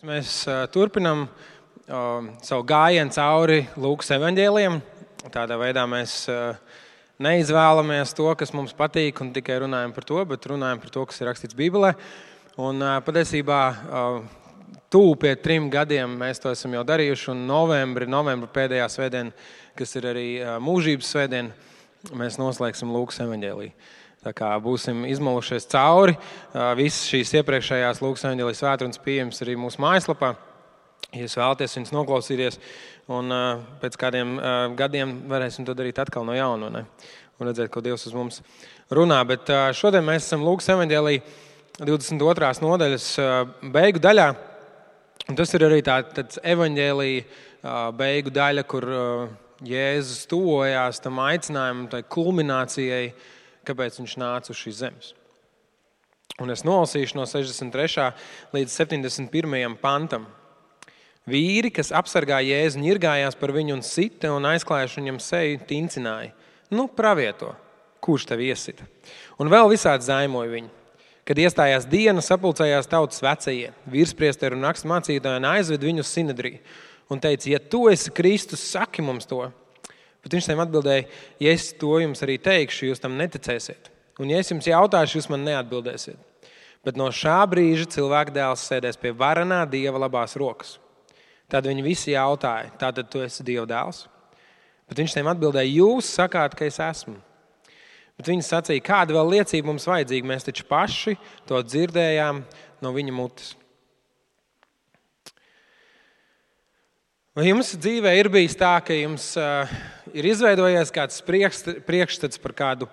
Mēs turpinām savu gājienu cauri Lūkas evaņģēlijam. Tādā veidā mēs neizvēlamies to, kas mums patīk, un tikai runājam par to, bet runājam par to, kas ir rakstīts Bībelē. Un patiesībā tuvu pie 3 gadiem mēs to esam jau darījuši, un novembra pēdējā svētdiena, kas ir arī mūžības svētdiena, mēs noslēgsim Lūkas evaņģēliju. Tā kā būsim izmalušies cauri, visas šīs iepriekšējās Lūkas evaņģēlijas svētrunas pieejamas arī mūsu mājaslapā. Ja jūs vēlaties viņus noklausīties, un pēc kādiem gadiem varēsim to darīt atkal no jauna, ne? Un redzēt, ko Dievs uz mums runā. Bet šodien mēs esam Lūkas evaņģēlija 22. nodaļas beigu daļā. Un tas ir arī tāds evaņģēlija beigu daļa, kur Jēzus tuvojās tam aicinājumam, tai kulminācijai, kāpēc viņš nāca uz šīs zemes. Un es nolasīšu no 63. līdz 71. pantam. Vīri, kas apsargā Jēzu, ņirgājās par viņu un sita un aizklājuši viņam seju, tincināja. Pravieto, kurš tev iesita? Un vēl visādi zaimoja viņu. Kad iestājās diena, sapulcējās tautas vecie, virspriesteri un rakstmācītāji un aizved viņu uz sinedriju. Un teica, ja tu esi Kristus, saki mums to. Bet viņš tiem atbildēja, ja es to jums arī teikšu, jūs tam neticēsiet. Un ja es jums jautāšu, jūs man neatbildēsiet. Bet no šā brīža cilvēka dēls sēdēs pie varenā Dieva labās rokas. Tad viņi visi jautāja, tātad tu esi Dieva dēls? Bet viņš tiem atbildēja, jūs sakāt, ka es esmu. Bet viņi sacīja, kāda vēl liecība mums vajadzīga, mēs taču paši to dzirdējām no viņa mutes. Vai jums dzīvē ir bijis tā, ka jums ir izveidojies kāds priekšstats par kādu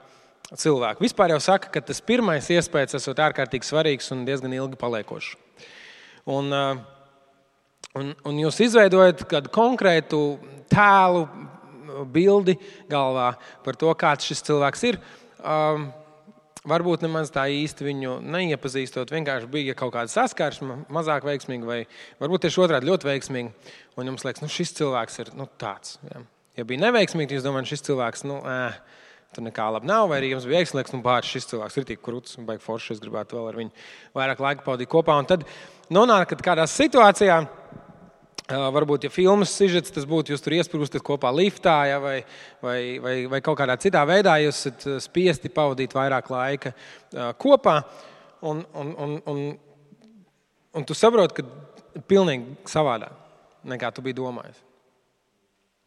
cilvēku? Vispār jau saka, ka tas pirmais iespējas esot ārkārtīgi svarīgs un diezgan ilgi paliekošs. Un jūs izveidojat kādu konkrētu tēlu, bildi galvā par to, kāds šis cilvēks ir. Varbūt nemaz tā īsti viņu neiepazīstot, vienkārši bija kaut kāda saskarsme, mazāk veiksmīga, vai varbūt tieši otrādi ļoti veiksmīga. Un jums liekas, šis cilvēks ir tāds. Ja. Ja bija neveiksmīgi, jūs domājat, šis cilvēks, tur nekā labi nav, vai arī jums bija veiksmīgs, šis cilvēks ir tik krūts, un baigi forši, es gribētu vēl ar viņu vairāk laika pavadīt kopā. Un tad nonākat kādā situācijā, varbūt, ja filmas sižets, tas būtu, jūs tur iesprūstat kopā liftā, ja, vai kaut kādā citā veidā jūs esat spiesti pavadīt vairāk laika kopā, un tu saproti, ka pilnīgi savādāk, nekā tu biji domājis.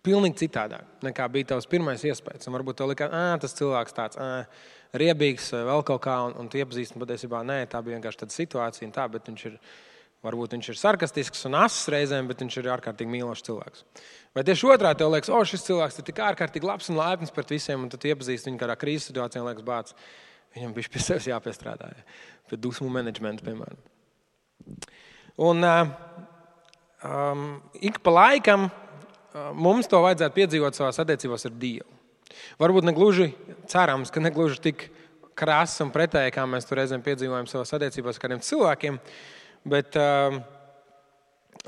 Pilnīgi citādāk, nekā bija tavs pirmais iespējas. Un varbūt tev likās, tas cilvēks tāds riebīgs vai vēl kaut kā, un tu iepazīsti, un patiesībā nē, tā bija vienkārši tāda situācija, un tā, bet varbūt viņš ir sarkastisks un ass reizēm, bet viņš ir ārkārtīgi mīlošs cilvēks. Vai tieši otrā tev liekas, šis cilvēks ir tik ārkārtīgi labs un laipns pret visiem, un tad tu iepazīsti viņu kādā krīzes situācijā un liekas, bāc, viņam bišķi pie sevis jāpiestrādā, pie dusmu menedžmenta, piemēram. Un ik pa laikam mums to vajadzētu piedzīvot savās attiecībās ar Dievu. Varbūt negluži cerams, ka negluži tik krāsas un pretēji, kā mēs to reizēm piedzīvojam savās attiecībās ar kādiem cilvēkiem, bet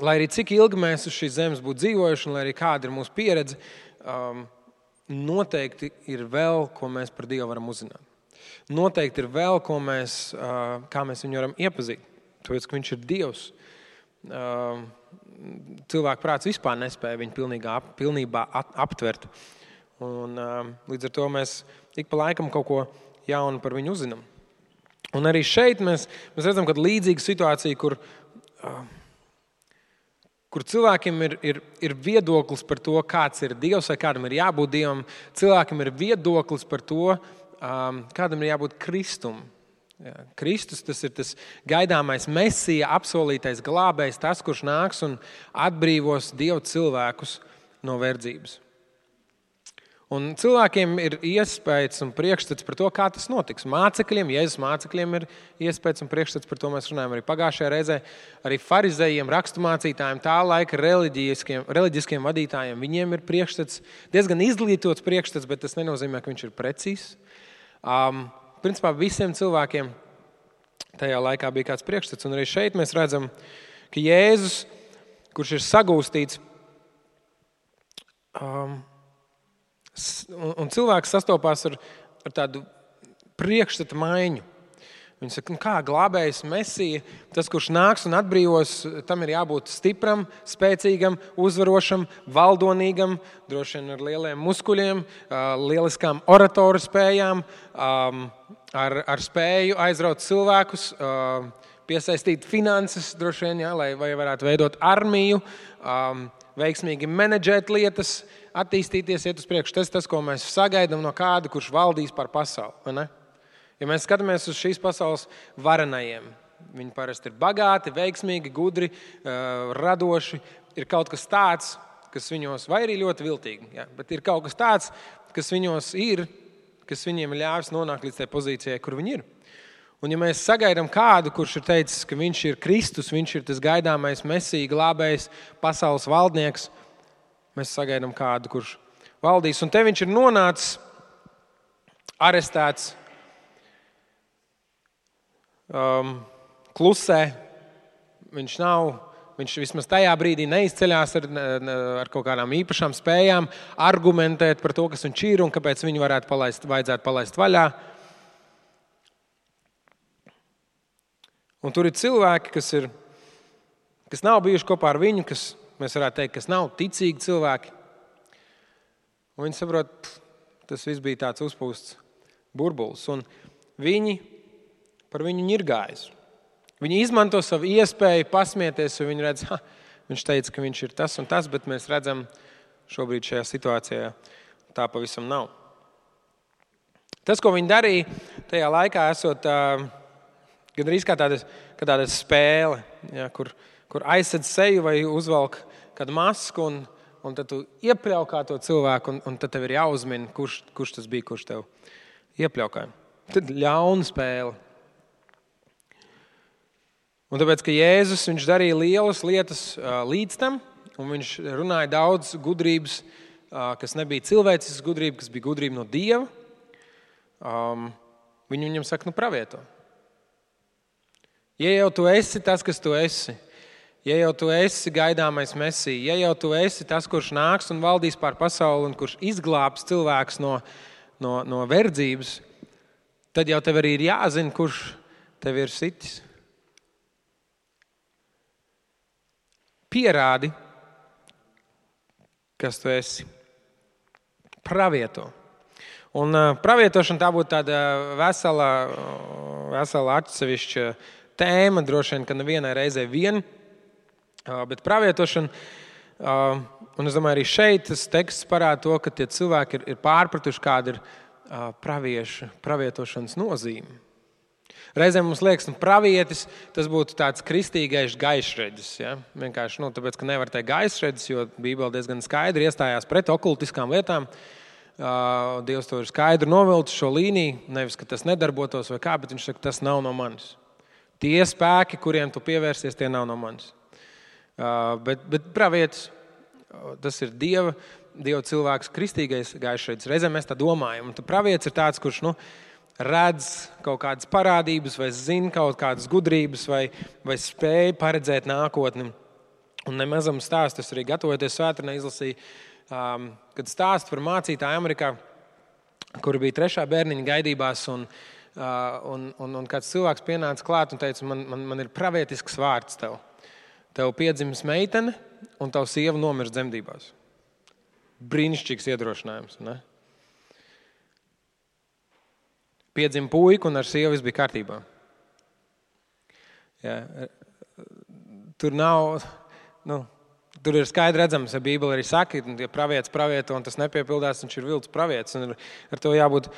lai arī cik ilgi mēs uz šīs zemes būtu dzīvojuši, un lai arī kāda ir mūsu pieredze, noteikti ir vēl, ko mēs par Dievu varam uzzināt. Noteikti ir vēl, kā mēs viņu varam iepazīt. Tāpēc, ka viņš ir Dievs. Cilvēku prāts vispār nespēja viņu pilnībā aptvert. Un līdz ar to mēs ik pa laikam kaut ko jaunu par viņu uzzinām. Un arī šeit mēs redzam, ka līdzīga situācija, kur cilvēkiem ir viedoklis par to, kāds ir Dievs vai kādam ir jābūt Dievam. Cilvēkiem ir viedoklis par to, kādam ir jābūt Kristum. Ja, Kristus, tas ir tas gaidāmais Mesija, apsolītais glābējs, tas, kurš nāks un atbrīvos Dievu cilvēkus no verdzības. Un cilvēkiem ir iespējas un priekšstats par to, kā tas notiks. Mācekļiem, Jēzus mācekļiem ir iespējas un priekšstats, par to mēs runājam arī pagājušajā reizē. Arī farizejiem, raksturmācītājiem, tā laika reliģiskiem vadītājiem, viņiem ir priekšstats, diezgan izglītots priekšstats, bet tas nenozīmē, ka viņš ir precīzs. Principā visiem cilvēkiem tajā laikā bija kāds priekšstats. Un arī šeit mēs redzam, ka Jēzus, kurš ir sagūstīts, un cilvēks sastopās ar tādu priekšstata maiņu. Viņi saka, kā glābējs Mesija, tas, kurš nāks un atbrīvos, tam ir jābūt stipram, spēcīgam, uzvarošam, valdonīgam, droši vien ar lieliem muskuļiem, lieliskām oratoru spējām, ar spēju aizraut cilvēkus, piesaistīt finanses, droši vien, lai varētu veidot armiju, veiksmīgi menedžēt lietas, attīstīties, iet uz priekšu. Tas, ko mēs sagaidām no kāda, kurš valdīs par pasauli. Vai ne? Ja mēs skatāmies uz šīs pasaules varenajiem, viņi parasti ir bagāti, veiksmīgi, gudri, radoši. Ir kaut kas tāds, kas viņos, vai arī ļoti viltīgi, bet ir kaut kas tāds, kas viņos ir, kas viņiem ir ļāvis nonākt līdz tai pozīcijai, kur viņi ir. Un ja mēs sagaidām kādu, kurš ir teicis, ka viņš ir Kristus, viņš ir tas gaidāmais Mesija, glābējs, pasaules valdnieks, mēs sagaidām kādu, kurš valdīs. Un te viņš ir nonācis, arestēts, klusē. Viņš vismaz tajā brīdī neizceļās ar kaut kādām īpašām spējām argumentēt par to, kas viņš ir un kāpēc viņu vajadzētu palaist vaļā. Un tur ir cilvēki, kas nav bijuši kopā ar viņu, kas, mēs varētu teikt, kas nav ticīgi cilvēki. Un viņi saprot, tas viss bija tāds uzpūsts burbulis. Un viņi par viņu ņirgājas. Viņi izmanto savu iespēju pasmieties, un viņi redz, viņš teica, ka viņš ir tas un tas, bet mēs redzam, šobrīd šajā situācijā tā pavisam nav. Tas, ko viņi darīja tajā laikā, esot gandrīz kā tāda spēle, kur aizsedz seju vai uzvelk kādu masku, un tad tu iepļaukā to cilvēku, un tad tev ir jāuzmina, kurš tas bija, kurš tev iepļaukāja. Tad ļauna spēle. Un tāpēc, ka Jēzus, viņš darīja lielas lietas līdz tam, un viņš runāja daudz gudrības, kas nebija cilvēciskas gudrība, kas bija gudrība no Dieva, viņam saka, pravieto. Ja jau tu esi tas, kas tu esi, ja jau tu esi gaidāmais Mesija, ja jau tu esi tas, kurš nāks un valdīs pār pasauli un kurš izglābs cilvēks no verdzības, tad jau tev arī ir jāzina, kurš tev ir sitis. Pierādi, kas tu esi. Pravieto. Un pravietošana tā būtu tāda vesela atsevišķa tēma, droši vien, ka nevienai reizē vien, bet pravietošana, un es domāju, arī šeit tas teksts parāda to, ka tie cilvēki ir pārpratuši, kāda ir pravietošanas nozīme. Reizēm mums liekas, pravietis, tas būtu tāds kristīgais gaišreģis. Ja? Vienkārši, tāpēc, ka nevar teikt gaišreģis, jo Bībele diezgan skaidri iestājās pret okultiskām lietām. Dievs to ir skaidri novilcis šo līniju, nevis, ka tas nedarbotos vai kā, bet viņš saka, tas nav no manis. Tie spēki, kuriem tu pievērsies, tie nav no manis. Bet pravietis, tas ir Dieva cilvēks, kristīgais gaišreģis. Reizēm mēs tā domājam. Un pravietis ir tāds, kurš, redz kaut kādas parādības vai zina kaut kādas gudrības vai spēja paredzēt nākotni. Un nemazam stāstu, es arī gatavoties svētdienai izlasīju, kad stāstu par mācītāju Amerikā, kura bija 3. bērniņa gaidībās, un kāds cilvēks pienāca klāt un teica, man ir pravietisks vārds tev. Tev piedzimis meitene un tavu sieva nomirst dzemdībās. Brīnišķīgs iedrošinājums, ne? Piedzima puika un ar sievu viss bija kārtībā. Ja, tur nav, tur ir skaidri redzams, ja Bībele arī saka, ja pravietis pravieto un tas nepiepildās, viņš ir viltus pravietis, un ar to jābūt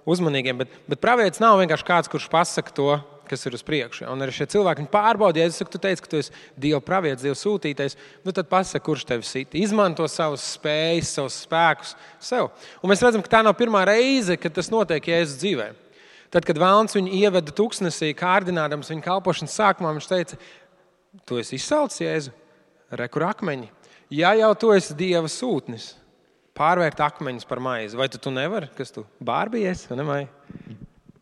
uzmanīgiem. Bet pravietis nav vienkārši kāds, kurš pasaka to, kas ir uz priekšu. Un arī šie cilvēki pārbauda, ja tu teici, ka tu esi Dieva pravietis, Dieva sūtītais, tad pasaka, kurš tevi sit. Izmanto savas spējas, savus spēkus sev. Un mēs redzam, ka tā nav pirmā reize, kad tas notiek Jēzus dzīvē. Tad, kad Vēlns viņu ieveda tuksnesī, kārdinādams viņa kalpošanas sākumā, viņš teica, tu esi izsalcis, Jēzu, re, kur akmeņi. Ja jau tu esi Dieva sūtnis, pārvērt akmeņus par maizi, vai tu nevari, kas tu bārbies, vai ne, Maija?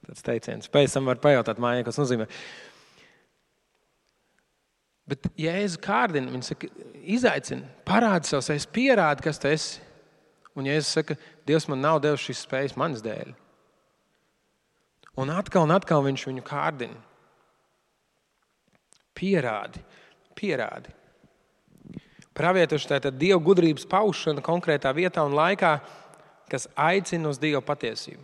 Tāds teiciens. Pēc tam var pajautāt Maijai, kas nozīmē. Bet Jēzu kārdina, viņš saka, izaicina, parādi savus, es pierādi, kas tu esi. Un Jēzus saka, Dievs man nav devis šīs spējas manas dēļ. Un atkal viņš viņu kārdina. Pierādi. Pravietošana tātad Dieva gudrības paušana konkrētā vietā un laikā, kas aicina uz Dieva patiesību.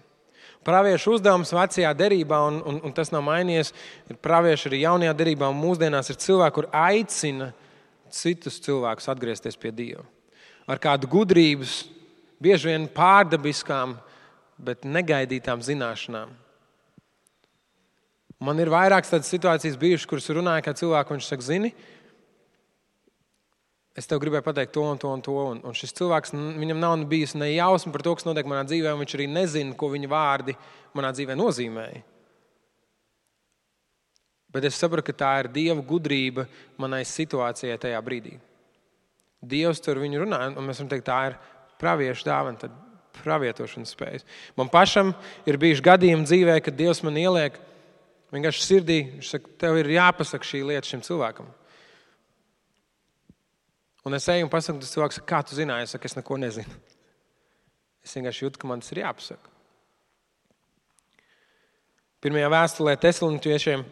Praviešu uzdevums vecajā derībā, un tas nav mainījies, ir pravieši arī jaunajā derībā, un mūsdienās ir cilvēki, kur aicina citus cilvēkus atgriezties pie Dieva. Ar kādu gudrības, bieži vien pārdabiskām, bet negaidītām zināšanām. Man ir vairākas tādas situācijas bijušas, kuras runāja kā cilvēku, viņš saka, zini, es tev gribēju pateikt to un to un to, un šis cilvēks, viņam nav bijis ne jausma par to, kas notiek manā dzīvē, un viņš arī nezina, ko viņa vārdi manā dzīvē nozīmēja. Bet es saprotu, ka tā ir Dieva gudrība manai situācijai tajā brīdī. Dievs tur viņu runā, un mēs varam teikt, tā ir praviešu dāvana, tad pravietošanas spējas. Man pašam ir bijuši gadījumi dzīvē, kad Dievs man ieliek vienkārši sirdī, viņš saka, tev ir jāpasaka šī lieta šim cilvēkam. Un es eju un pasaku, tas cilvēks saka, kā tu zināji? Es saku, es neko nezinu. Es vienkārši jūtu, ka man tas ir jāpasaka. Pirmajā vēstulē Tesaloniķiešiem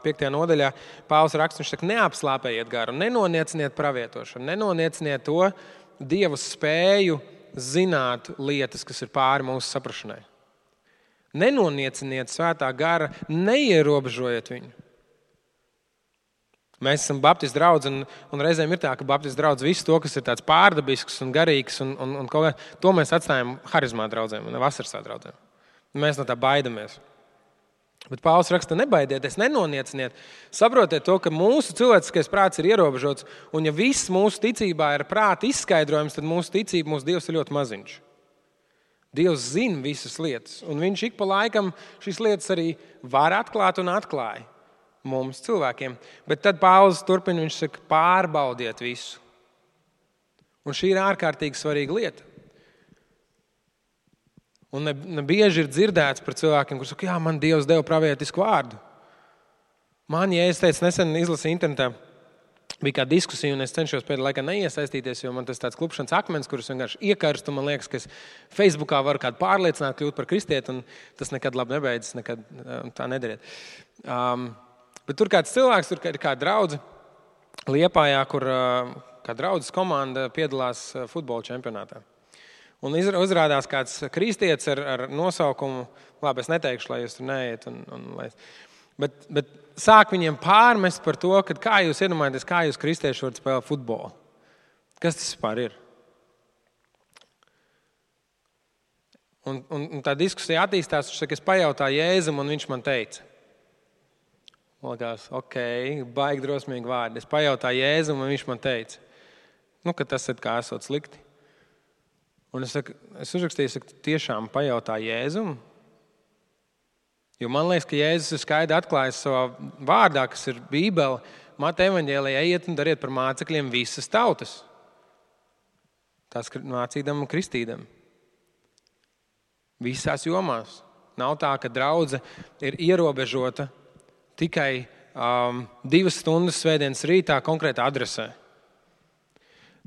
5. nodaļā Pāvils raksta, viņš saka, neapslāpējiet garu, nenonieciniet pravietošanu, nenonieciniet to Dieva spēju zināt lietas, kas ir pāri mūsu saprašanai. Nenonieciniet svētā gara, neierobežojiet viņu. Mēs esam baptistu draudz, un reizēm ir tā, ka baptistu draudz visu to, kas ir tāds pārdabisks un garīgs, un kaut kā, to mēs atstājam harizmā draudzēm un vasarsā draudzēm. Mēs no tā baidamies. Bet Pāvils raksta, nebaidieties, nenonieciniet. Saprotiet to, ka mūsu cilvēciskais prāts ir ierobežots, un ja viss mūsu ticībā ir prāta izskaidrojums, tad mūsu ticība, mūsu Dievs ir ļoti maziņš. Dievs zina visas lietas, un viņš ik pa laikam šīs lietas arī var atklāt un atklāja mums cilvēkiem. Bet tad Pāvils turpina, viņš saka, pārbaudiet visu. Un šī ir ārkārtīgi svarīga lieta. Un ne bieži ir dzirdēts par cilvēkiem, kurus saka, jā, man Dievs deva pravietisku vārdu. Man, ja es teicu, nesen izlasīju internetā, bija kāda diskusija, un es cenšos pēdējā laikā neiesaistīties, jo man tas tāds klupšanas akmens, kurus vienkārši iekarstu, man liekas, ka es Facebookā varu kādu pārliecināt, kļūt par kristieti, un tas nekad labi nebeidzas, nekad tā nedariet. Bet tur kāds cilvēks, tur ir kāda draudze Liepājā, kur kā draudzes komanda piedalās futbola čempionātā. Un uzrādās kāds kristietis ar nosaukumu, labi, es neteikšu, lai jūs tur neiet. Bet sāk viņiem pārmest par to, ka kā jūs iedomājaties, kā jūs kristieši varat spēlēt futbolu. Kas tas vispār ir? Un tā diskusija attīstās, viņš saka, es pajautāju Jēzum, un viņš man teica. Likās, baigi drosmīgi vārdi. Es pajautāju Jēzum, un viņš man teica, ka tas ir kā esot slikti. Un es uzrakstīju, tiešām pajautāju Jēzum. Jo man liekas, ka Jēzus ir skaidri atklājis savā vārdā, kas ir Bībele, Mateja evaņģēlijā, ejiet un dariet par mācekļiem visas tautas. Tās mācīdam un kristīdam. Visās jomās. Nav tā, ka draudze ir ierobežota tikai 2 stundas svētdienas rītā konkrētā adresē.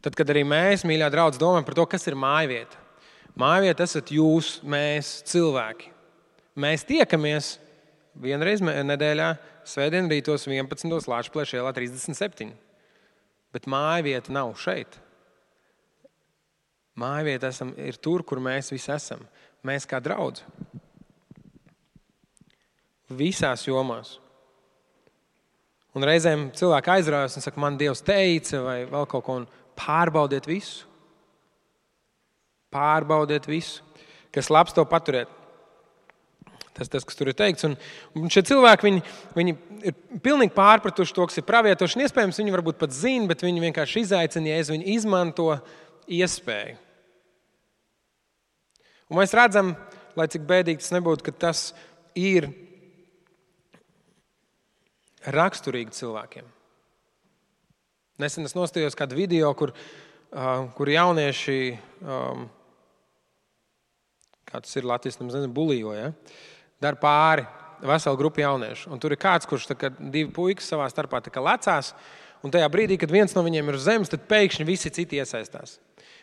Tad, kad arī mēs, mīļā draudze, domājam par to, kas ir mājvieta. Mājvieta esat jūs, mēs, cilvēki. Mēs tiekamies vienreiz nedēļā, svētdien rītos 11. Lāčplēša ielā 37. Bet mājvieta nav šeit. Mājvieta ir tur, kur mēs visi esam. Mēs kā draudze. Visās jomās. Un reizēm cilvēki aizraujas un saka, man Dievs teica vai vēl kaut ko, un pārbaudiet visu. Pārbaudiet visu. Kas labs, to paturiet. Tas, kas tur ir teikts. Un šie cilvēki, viņi ir pilnīgi pārpratuši to, kas ir pravietošana. Iespējams, viņi varbūt pat zina, bet viņi vienkārši izaicina, ja viņi izmanto iespēju. Un mēs redzam, lai cik bēdīgi tas nebūtu, ka tas ir raksturīgi cilvēkiem. Nesen es nostājos kādu video, kur jaunieši, kā tas ir Latvijas, bulījo, ja? Dar pāri veselu grupu jauniešu. Un tur ir kāds, kurš 2 puikas savā starpā lecās, un tajā brīdī, kad viens no viņiem ir uz zemes, tad pēkšņi visi citi iesaistās.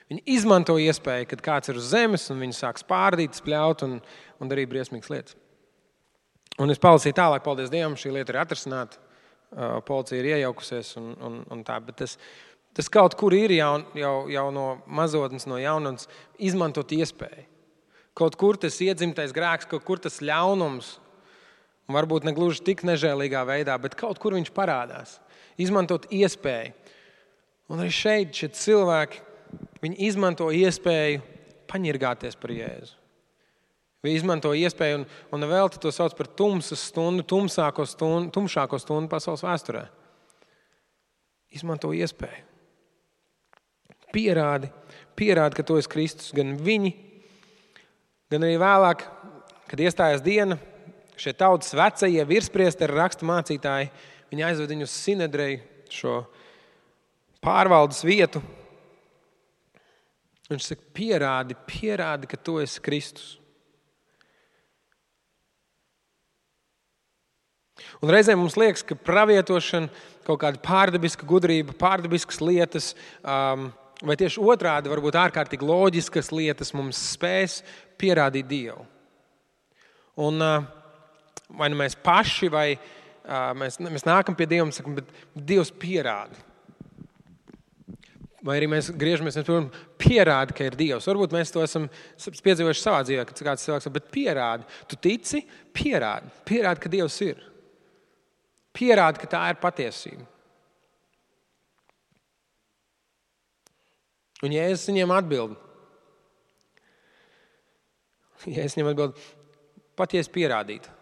Viņi izmanto iespēju, kad kāds ir uz zemes, un viņi sāk spārdīt, spļaut un darīt briesmīgas lietas. Un es palasīju tālāk, paldies Dievam, šī lieta ir atrisināta. Policija ir iejaukusies un tā, bet tas kaut kur ir jau no mazotnes, no jaunatnes izmantot iespēju. Kaut kur tas iedzimtais grēks, kaut kur tas ļaunums, varbūt ne gluži tik nežēlīgā veidā, bet kaut kur viņš parādās. Izmantot iespēju. Un arī šeit šie cilvēki, viņi izmanto iespēju paņirgāties par Jēzu. Viņi izmanto iespēju un vēl to sauc par tumsas stundu, tumšāko stundu pasaules vēsturē. Izmanto iespēju. Pierādi, ka tu esi Kristus. Gan viņi, gan arī vēlāk, kad iestājās diena, šie tautas vecie virspriesteri, rakstu mācītāji, viņi aizved viņu uz Sinedreju, šo pārvaldes vietu. Viņš saka, pierādi, ka tu esi Kristus. Un reizēm mums liekas, ka pravietošana, kaut kāda pārdabiska gudrība, pārdabiskas lietas, vai tieši otrādi, varbūt ārkārtīgi loģiskas lietas mums spēs pierādīt Dievu. Un vai nu mēs paši, vai mēs nākam pie Dieva un sakam, bet Dievs pierādi. Vai arī mēs griežamies, pierādi, ka ir Dievs. Varbūt mēs to esam piedzīvojuši savā dzīvē, kad kāds cilvēks saka, bet pierādi. Tu tici? Pierādi, ka Dievs ir. Pierādi, ka tā ir patiesība. Un Jēzus viņiem atbild. Pat ja es pierādītu,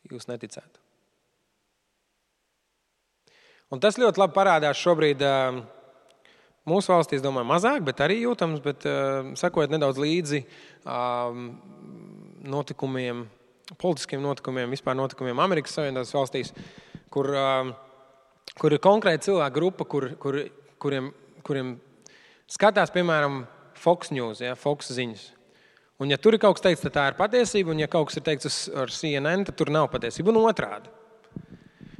jūs neticētu. Un tas ļoti labi parādās šobrīd mūsu valstī, es domāju, mazāk, bet arī jūtams, bet sekojot nedaudz līdzi notikumiem, politiskiem notikumiem, vispār notikumiem Amerikas Savienotās valstīs, kur ir konkrēta cilvēka grupa, kuriem skatās, piemēram, Fox News, Fox ziņas. Un ja tur ir kaut kas teikts, tad tā ir patiesība, un ja kaut kas ir teikts ar CNN, tad tur nav patiesība. Un otrādi.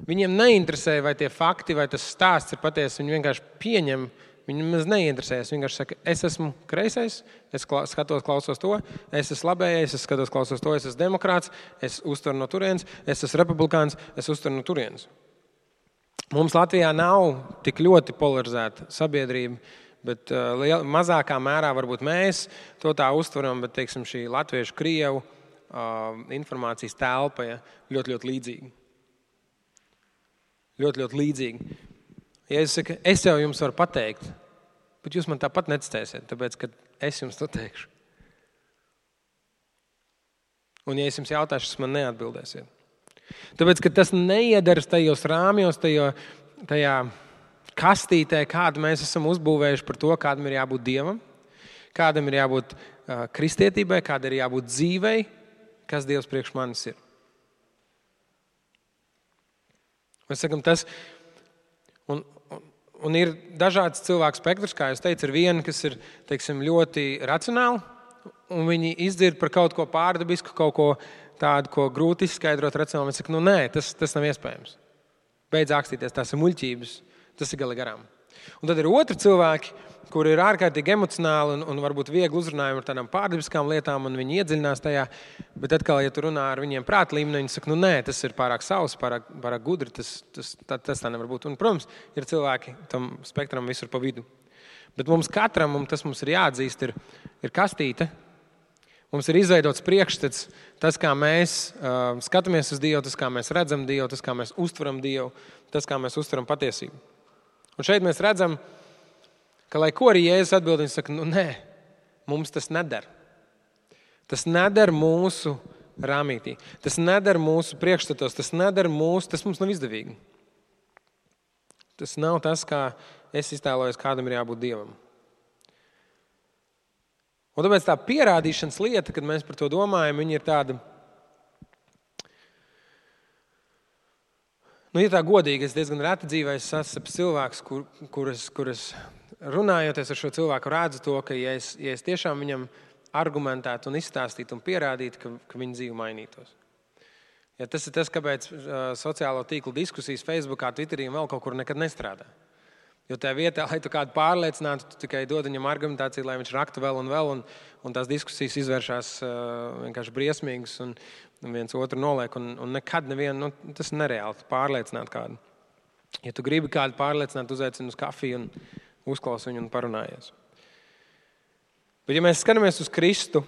Viņiem neinteresē, vai tie fakti, vai tas stāsts ir patiesi, viņi vienkārši pieņem. Viņam maz neinteresējas. Vienkārši saka, es esmu kreisais, es skatos, klausos to, es esmu labējais, es skatos, klausos to, es esmu demokrāts, es uztveru no turienes, es esmu republikāns, es uztveru no turienes. Mums Latvijā nav tik ļoti polarizēta sabiedrība, bet mazākā mērā varbūt mēs to tā uztveram, bet, teiksim, šī latviešu krievu informācijas telpa ļoti, ļoti līdzīga. Ļoti, ļoti līdzīgi. Jēzus saka, es jau jums varu pateikt, bet jūs man tāpat neticēsiet, tāpēc, ka es jums to teikšu. Un ja es jums jautāšu, jūs man neatbildēsiet. Tāpēc, ka tas neiedaras tajos rāmjos, tajā kastītē, kādu mēs esam uzbūvējuši par to, kādam ir jābūt Dievam, kādam ir jābūt kristietībai, kāda ir jābūt dzīvei, kas Dievs priekš manis ir. Mēs sakam, tas... Un ir dažāds cilvēku spektrs, kā jūs teicu, ir viena, kas ir, teiksim, ļoti racionāli, un viņi izdzird par kaut ko pārdabisku, kaut ko tādu, ko grūti izskaidrot racionāli. Viņi saka, nē, tas nav iespējams. Beidz ākstīties, tās ir muļķības, tas ir gali garām. Un tad ir otri cilvēki, kuri ir ārkārtīgi emocionāli un varbūt viegli uzrunājumi ar tādām pārdabiskām lietām, un viņi iedziļinās tajā, bet atkal, ja tu runā ar viņiem prāta līmenī, viņi saka, nē, tas ir pārāk savs, pārāk gudri, tas tā nevar būt. Un, protams, ir cilvēki tam spektram visur pa vidu. Bet mums katram, un tas mums ir jāatzīst, ir kastīte. Mums ir izveidots priekšstats, tas, kā mēs skatāmies uz Dievu, tas, kā mēs redzam Dievu, tas, kā mēs uztveram Dievu, tas, kā mēs uztveram patiesību. Un šeit mēs redzam, ka, lai ko arī Jēzus atbild, viņš saka, nē, mums tas neder. Tas neder mūsu rāmītī. Tas neder mūsu priekšstatos, tas mums nav izdevīgi. Tas nav tas, kā es iztēlojos, kādam ir jābūt Dievam. Un tāpēc tā pierādīšanas lieta, kad mēs par to domājam, viņa ir tāda, ja tā godīgi, es diezgan reti dzīvē sastapu cilvēkus, kuras runājoties ar šo cilvēku redzu to, ka ja es tiešām viņam argumentētu un izstāstītu un pierādītu, ka viņa dzīve mainītos. Ja tas ir tas, kāpēc sociālo tīklu diskusijas Facebookā, Twitterī un vēl kaut kur nekad nestrādā. Jo tajā vietā, lai tu kādu pārliecinātu, tu tikai dod viņam argumentāciju, lai viņš raktu vēl un vēl, un tās diskusijas izvēršās vienkārši briesmīgas, un viens otru noliek, un nekad nevienu, tas ir nereāli pārliecināt kādu. Ja tu gribi kādu pārliecināt, uzaicini uz kafiju un uzklausi viņu un parunājies. Bet ja mēs skatāmies uz Kristu,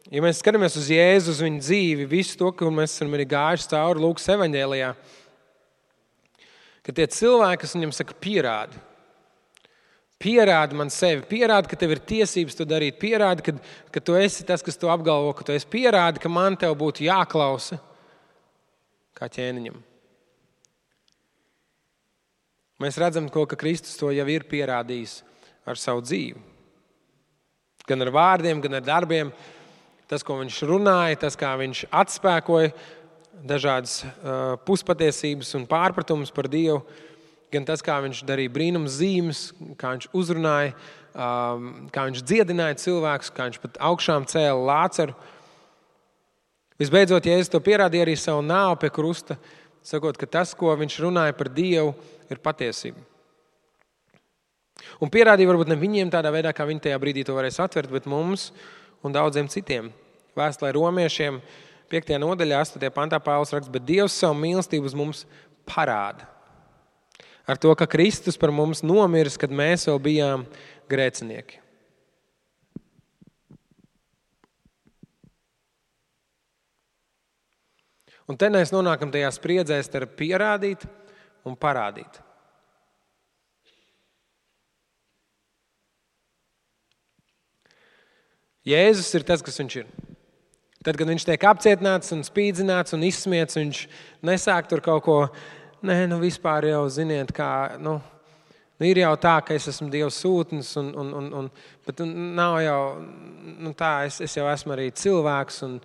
ja mēs skatāmies uz Jēzu, uz viņu dzīvi, visu to, ko mēs esam arī gājuši cauri Lūkas evaņģēlijā, ka tie cilvēki, kas viņam saka, pierādi man sevi, pierādi, ka tev ir tiesības to darīt, pierādi, ka tu esi tas, kas to apgalvo, ka tu esi, pierādi, ka man tev būtu jāklausa kā ķēniņam. Mēs redzam, ka Kristus to jau ir pierādījis ar savu dzīvi. Gan ar vārdiem, gan ar darbiem. Tas, ko viņš runāja, tas, kā viņš atspēkoja dažādas puspatiesības un pārpratumus par Dievu, gan tas, kā viņš darīja brīnums zīmes, kā viņš uzrunāja, kā viņš dziedināja cilvēkus, kā viņš pat augšām cēla Lācaru. Visbeidzot, Jēzus to pierādīja arī savu nāvu pie krusta, sakot, ka tas, ko viņš runāja par Dievu, ir patiesība. Un pierādīja varbūt ne viņiem tādā veidā, kā viņi tajā brīdī to varēs atvert, bet mums un daudziem citiem. Vēstulē Romiešiem 5. nodaļā, 8. pantā Pāvils raksta, bet Dievs savu mīlestību uz mums parāda. Ar to, ka Kristus par mums nomiris, kad mēs vēl bijām grēcinieki. Un te mēs nonākam tajā spriedzē starp pierādīt un parādīt. Jēzus ir tas, kas viņš ir. Tad, kad viņš tiek apcietināts un spīdzināts un izsmiets, viņš nesāk tur kaut ko, vispār jau ziniet, kā, ir jau tā, ka es esmu Dieva sūtnis, bet nav jau tā, es jau esmu arī cilvēks, un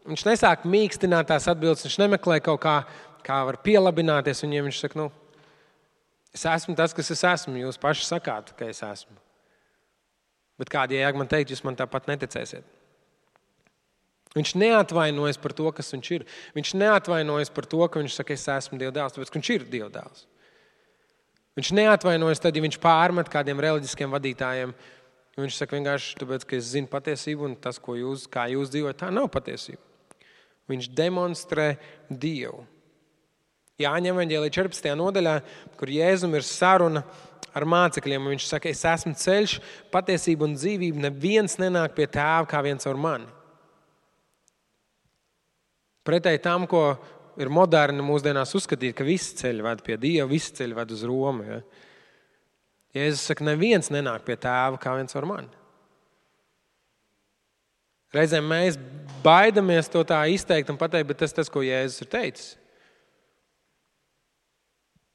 viņš nesāk mīkstināt tās atbildes, viņš nemeklē kaut kā var pielabināties, un ja viņš saka, es esmu tas, kas es esmu, jūs paši sakāt, ka es esmu. Bet kādi jēga man teikt, jūs man tāpat neticēsiet. Viņš neatvainojas par to, kas viņš ir. Viņš neatvainojas par to, ka viņš saka, es esmu Dieva dēls, tāpēc, ka viņš ir Dieva dēls. Viņš neatvainojas tad, ja viņš pārmet kādiem reliģiskiem vadītājiem. Viņš saka vienkārši, tāpēc, ka es zinu patiesību un tas, kā jūs dzīvojat, tā nav patiesība. Viņš demonstrē Dievu. Jāņa evaņģēlija 14. nodaļā, kur Jēzum ir saruna ar mācekļiem, un viņš saka, es esmu ceļš, patiesība un dzīvība, neviens nenāk pie tēva kā viens ar mani. Pretēji tam, ko ir moderni mūsdienās uzskatīt, ka visi ceļi ved pie Dieva, visi ceļi ved uz Romu. Ja? Jēzus saka, neviens nenāk pie tēva kā viens ar mani. Reizēm mēs baidamies to tā izteikt un pateikt, bet tas, ko Jēzus ir teicis.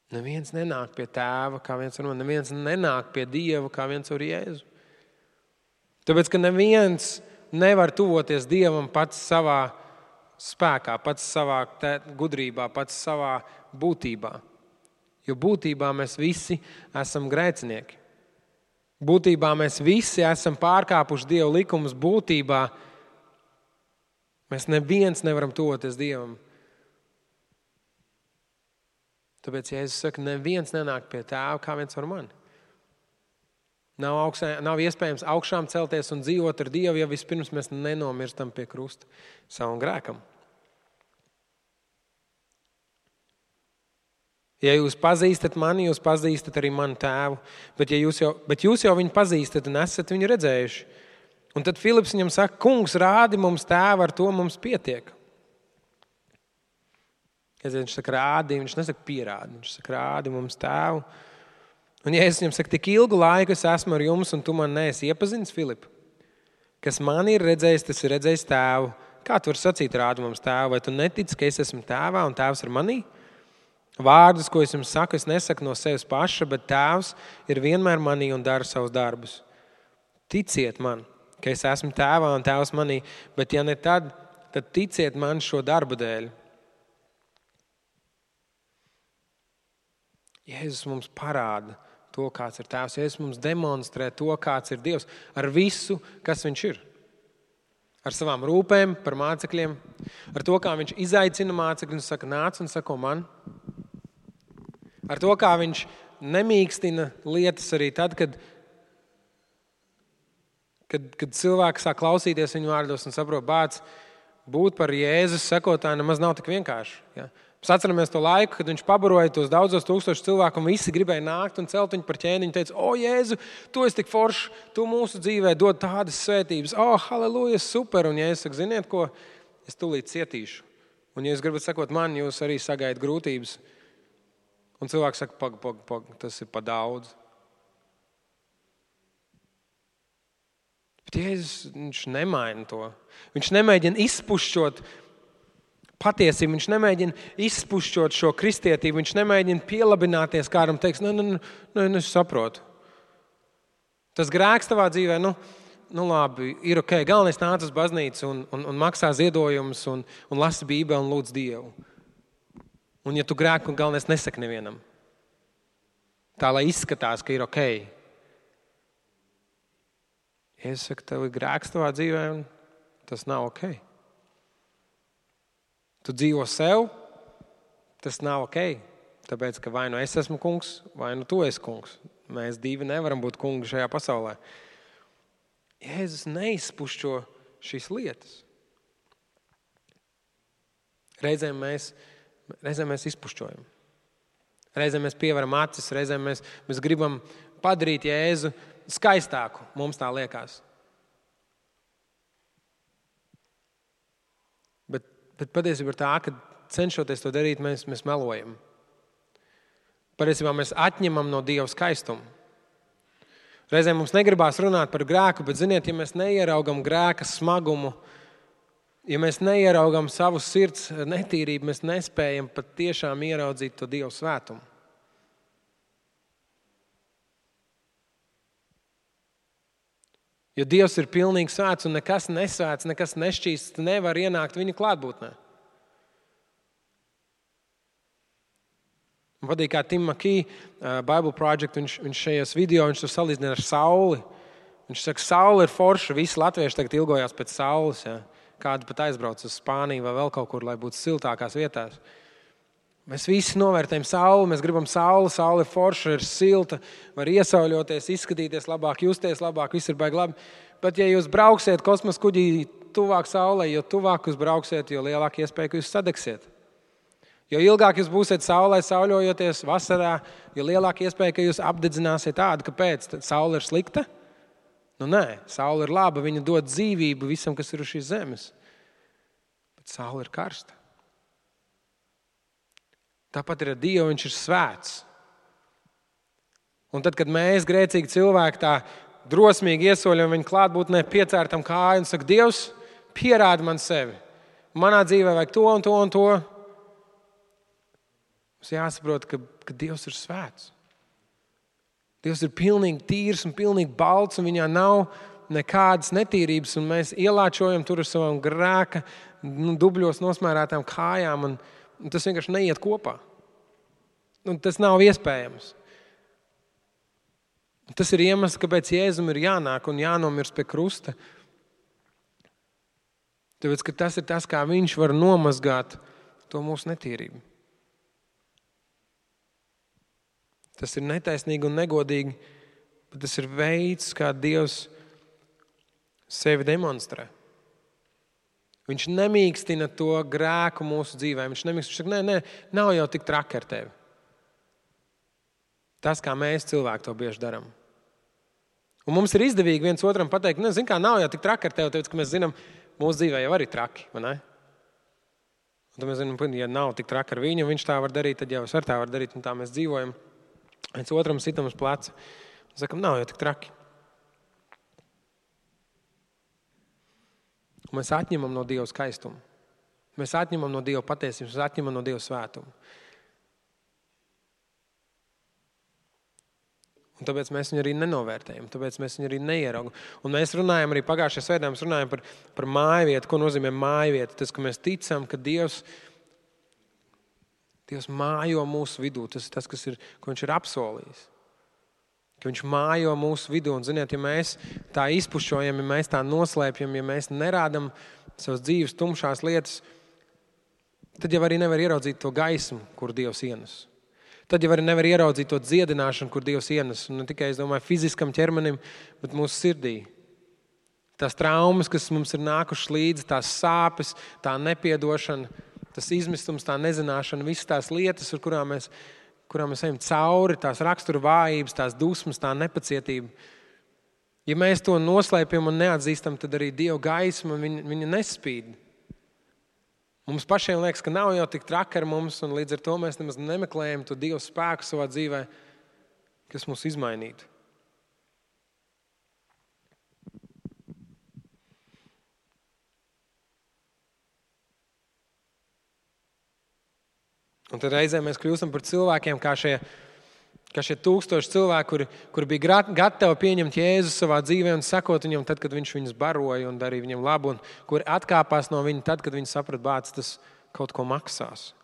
Neviens nenāk pie tēva kā viens ar mani, neviens nenāk pie Dieva kā viens ar Jēzu. Tāpēc, ka neviens nevar tuvoties Dievam pats savā spēkā, pats savā gudrībā, pats savā būtībā. Jo būtībā mēs visi esam grēcinieki. Būtībā mēs visi esam pārkāpuši Dieva likumus. Būtībā mēs neviens nevaram tuvoties Dievam. Tāpēc Jēzus saka, neviens nenāk pie tēva kā viens ar mani. Nav iespējams augšām celties un dzīvot ar Dievu, ja vispirms mēs nenomirstam pie krusta savam grēkam. Ja jūs pazīstat mani, jūs pazīstat arī manu tēvu, bet jūs jau viņu pazīstat un esat viņu redzējuši. Un tad Filips viņam saka, kungs, rādi mums tēvu, ar to mums pietiek. Viņš saka, rādi, viņš nesaka pierādi, viņš saka, rādi mums tēvu. Un Jēzus viņam saka, tik ilgu laiku es esmu ar jums, un tu man neesi iepazinis, Filip. Kas man ir redzējis, tas ir redzējis tēvu. Kā tu vari sacīt, rādi mums tēvu? Vai tu netici, ka es esmu tēvā un tēvs ir manī? Vārdus, ko es jums saku, es nesaku no sevis paša, bet tēvs ir vienmēr manī un dara savus darbus. Ticiet man, ka es esmu tēvā un tēvs manī, bet ja ne tad ticiet man šo darbu dēļ. Jēzus mums parāda to, kāds ir tēvs. Jēzus mums demonstrē to, kāds ir Dievs ar visu, kas viņš ir. Ar savām rūpēm par mācekļiem, ar to, kā viņš izaicina mācekļus un saka, nāc un sako man. Ar to, kā viņš nemīkstina lietas arī tad, kad cilvēki sāk klausīties viņu vārdos un saprot, bāc, būt par Jēzus sekotāju nemaz nav tik vienkārši. Ja? Mēs atceramies to laiku, kad viņš pabaroja tos daudzos tūkstošus cilvēku, un visi gribēja nākt un celt viņu par ķēniņu. Teica, o, Jēzu, tu esi tik foršs, tu mūsu dzīvē dod tādas svētības. O, halleluja, super. Un Jēzus saka, ziniet ko, es tūlīt cietīšu. Un ja jūs gribat sekot man, jūs arī sagaidat grūtības. Un cilvēks saka, pag, tas ir pa daudz. Bet Jēzus, viņš nemaina to. Viņš nemēģina izpušķot patiesību, viņš nemēģina izpušķot šo kristietību, viņš nemēģina pielabināties, kādam teiks, es saprotu. Tas grēks tavā dzīvē, labi, ir ok, galvenais nāc uz baznīcu un maksā ziedojumus un lasi Bībeli un lūdz Dievu. Un ja tu grēku, galvenais nesaki nevienam. Tā, lai izskatās, ka ir ok. Es saku, tev ir grēks tavā dzīvē, un tas nav ok. Tu dzīvo sev, tas nav ok. Tāpēc, ka vai nu es esmu kungs, vai nu tu esi kungs. Mēs divi nevaram būt kungi šajā pasaulē. Jēzus neizpušķo šīs lietas. Reizēm mēs izpušķojam. Reizēm mēs pievaram acis, reizēm mēs gribam padarīt Jēzu skaistāku, mums tā liekas. Bet patiesībā ir tā, ka cenšoties to darīt, mēs melojam. Patiesībā mēs atņemam no Dieva skaistumu. Reizēm mums negribās runāt par grēku, bet ziniet, ja mēs neieraugam grēka smagumu, ja mēs neieraugam savu sirds netīrību, mēs nespējam pat tiešām ieraudzīt to Dieva svētumu. Jo Dievs ir pilnīgi svēts un nekas nesvēts, nekas nešķīsts, nevar ienākt viņa klātbūtnē. Man patīk, kā Tim McKee, Bible Project, viņš šajos video, viņš to salīdzina ar sauli. Viņš saka, saule ir forša, visi latvieši tagad ilgojās pēc saules. Ja? Kādi pat aizbrauc uz Spāniju vai vēl kaut kur, lai būtu siltākās vietās. Mēs visi novērtējam sauli, mēs gribam sauli, saule ir forša, ir silta, var iesauļoties, izskatīties labāk, justies labāk, viss ir baigi labi. Bet ja jūs brauksiet kosmosa kuģī tuvāk saulē, jo tuvāk jūs brauksiet, jo lielāka iespēja, ka jūs sadegsiet. Jo ilgāk jūs būsiet saulē sauļojoties vasarā, jo lielāka iespēja, ka jūs apdedzināsiet tādu, kāpēc saule ir slikta? Nē, saule ir laba, viņa dod dzīvību visam, kas ir uz šīs zemes. Bet saule ir karsta. Tāpat ir ar Dievu, viņš ir svēts. Un tad, kad mēs, grēcīgi cilvēki, tā drosmīgi iesoļam viņa klātbūtnē, piecērtam kāju un saka, Dievs, pierādi man sevi. Manā dzīvē vajag to un to un to. Mums jāsaprot, ka Dievs ir svēts. Dievs ir pilnīgi tīrs un pilnīgi balts, un viņā nav nekādas netīrības, un mēs ielāčojam tur ar savām grēka dubļos nosmērētām kājām, un tas vienkārši neiet kopā. Un tas nav iespējams. Tas ir iemesls, kāpēc Jēzum ir jānāk un jānomirst pie krusta. Tāpēc, ka tas ir tas, kā viņš var nomazgāt to mūsu netīrību. Tas ir netaisnīgi un negodīgi, bet tas ir veids, kā Dievs sevi demonstrē. Viņš nemīkstina to grēku mūsu dzīvē. Viņš saka, nē, nav jau tik traki ar tevi. Tas, kā mēs cilvēki to bieži darām. Un mums ir izdevīgi viens otram pateikt, zin kā, nav jau tik traki ar tevi, tāpēc, ka mēs zinām, mūsu dzīvē jau arī traki, vai ne? Un tad mēs zinām, ja nav tik traki ar viņu, viņš tā var darīt, tad jau es ar tā var darīt, un tā mēs dzīvojam. Viens otram sitam uz pleca. Un sakam, nav jau tik traki. Un mēs atņemam no Dieva skaistumu. Mēs atņemam no Dieva patiesības, mēs atņemam no Dieva svētumu. Un tāpēc mēs viņu arī nenovērtējam, tāpēc mēs viņu arī neieraugam. Un mēs runājam arī pagājušajā svētdienā, mēs runājam par mājvietu, ko nozīmē mājvieta. Tas, ka mēs ticam, ka Dievs mājo mūsu vidū. Tas ir tas, ko viņš ir apsolījis. Ka viņš mājo mūsu vidū. Un, ziniet, ja mēs tā izpušķojam, ja mēs tā noslēpjam, ja mēs nerādam savas dzīves tumšās lietas, tad jau arī nevar ieraudzīt to gaismu, kur Dievs ienes. Tad jau arī nevar ieraudzīt to dziedināšanu, kur Dievs ienes. Un ne tikai, es domāju, fiziskam ķermenim, bet mūsu sirdī. Tās traumas, kas mums ir nākušas līdzi, tās sāpes, tā nepiedošana, tas izmistums, tā nezināšana, visas tās lietas, ar kurām mēs ejam cauri, tās rakstura vājības, tās dusmas, tā nepacietība. Ja mēs to noslēpjam un neatzīstam, tad arī Dieva gaisma viņa nespīd. Mums pašiem liekas, ka nav jau tik traki ar mums, un līdz ar to mēs nemaz nemeklējam to Dieva spēku savā dzīvē, kas mūs izmainītu. Un tad reizē mēs kļūstam par cilvēkiem, kā šie 1000 cilvēki, kuri bija gatavi pieņemt Jēzu savā dzīvē un sekot viņam tad, kad viņš viņus baroja un darīja viņam labu, un kuri atkāpās no viņa tad, kad viņi saprata, bāc, tas kaut ko maksās.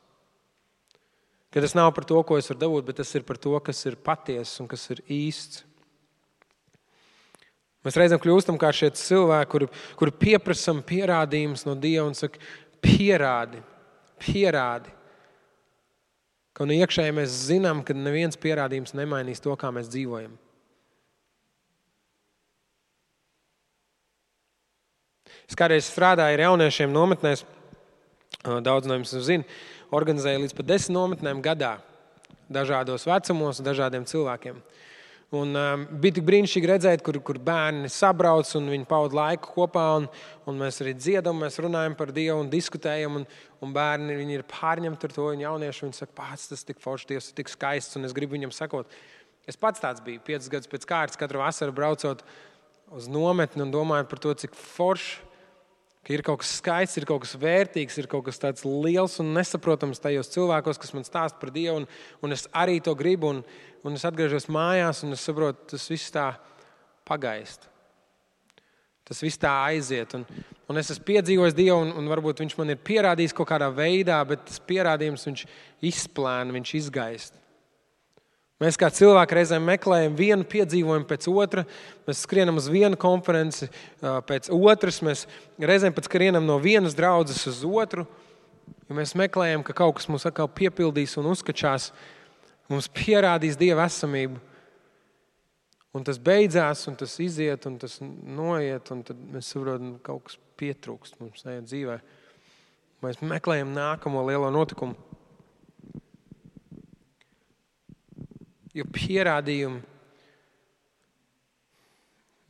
Ka tas nav par to, ko es varu dabūt, bet tas ir par to, kas ir patiess un kas ir īsts. Mēs reizēm kļūstam kā šie cilvēki, kuri pieprasam pierādījumus no Dieva un saka, pierādi. Ka no iekšēji mēs zinām, ka neviens pierādījums nemainīs to, kā mēs dzīvojam. Es kādreiz strādāju ar jauniešiem nometnēs, daudz no jums zina, organizēju līdz pat 10 nometnēm gadā, dažādos vecumos, dažādiem cilvēkiem. Un bija tik brīnišķīgi redzēt, kur bērni sabrauc un viņi pavada laiku kopā, un mēs arī dziedam, mēs runājam par Dievu un diskutējam, un bērni viņi ir pārņemti ar to, un jaunieši viņi saka, pats tas tik forši, Dievs ir tik skaists, un es gribu viņam sakot. Es pats tāds biju, 5 gadus pēc kārtas, katru vasaru braucot uz nometni un domāju par to, cik forši, ka ir kaut kas skaists, ir kaut kas vērtīgs, ir kaut kas tāds liels un nesaprotams tajos cilvēkos, kas man stāsta par Dievu, un es arī to gribu, un es atgriežos mājās, un es saprotu, tas viss tā pagaist. Tas viss tā aiziet, un es esmu piedzīvojis Dievu, un varbūt viņš man ir pierādījis kaut kādā veidā, bet tas pierādījums viņš izplēna, viņš izgaist. Mēs kā cilvēki reizēm meklējam vienu piedzīvojumu pēc otra, mēs skrienam uz vienu konferenci pēc otras, mēs reizēm pat skrienam no vienas draudzes uz otru, jo mēs meklējam, ka kaut kas mūs atkal piepildīs un uzskačās, mums pierādīs Dieva esamību. Un tas beidzās, un tas iziet, un tas noiet, un tad mēs saprotam, ka kaut kas pietrūkst mums tajā dzīvē. Mēs meklējam nākamo lielo notikumu. Jo pierādījumi,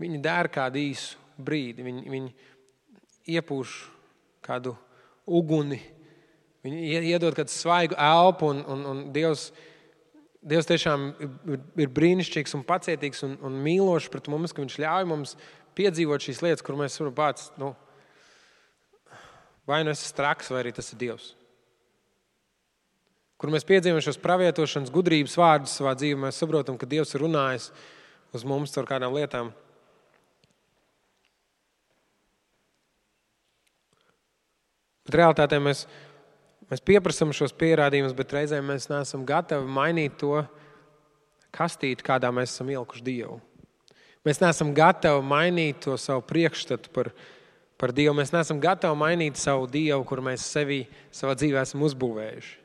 viņi dara kādu īsu brīdi, viņi iepūš kādu uguni, viņi iedod kādu svaigu elpu, un Dievs tiešām ir brīnišķīgs un pacietīgs un mīlošs pret mums, ka viņš ļauj mums piedzīvot šīs lietas, kur mēs varam pats, vai nu es esmu traks, vai arī tas ir Dievs. Kur mēs piedzīvojam šos pravietošanas gudrības vārdus savā dzīvē, mēs saprotam, ka Dievs ir runājis uz mums ar kādām lietām. Bet realitātē mēs pieprasam šos pierādījumus, bet reizēm mēs neesam gatavi mainīt to kastīti, kādā mēs esam ielikuši Dievu. Mēs neesam gatavi mainīt to savu priekšstatu par Dievu. Mēs neesam gatavi mainīt savu Dievu, kur mēs savā dzīvē esam uzbūvējuši.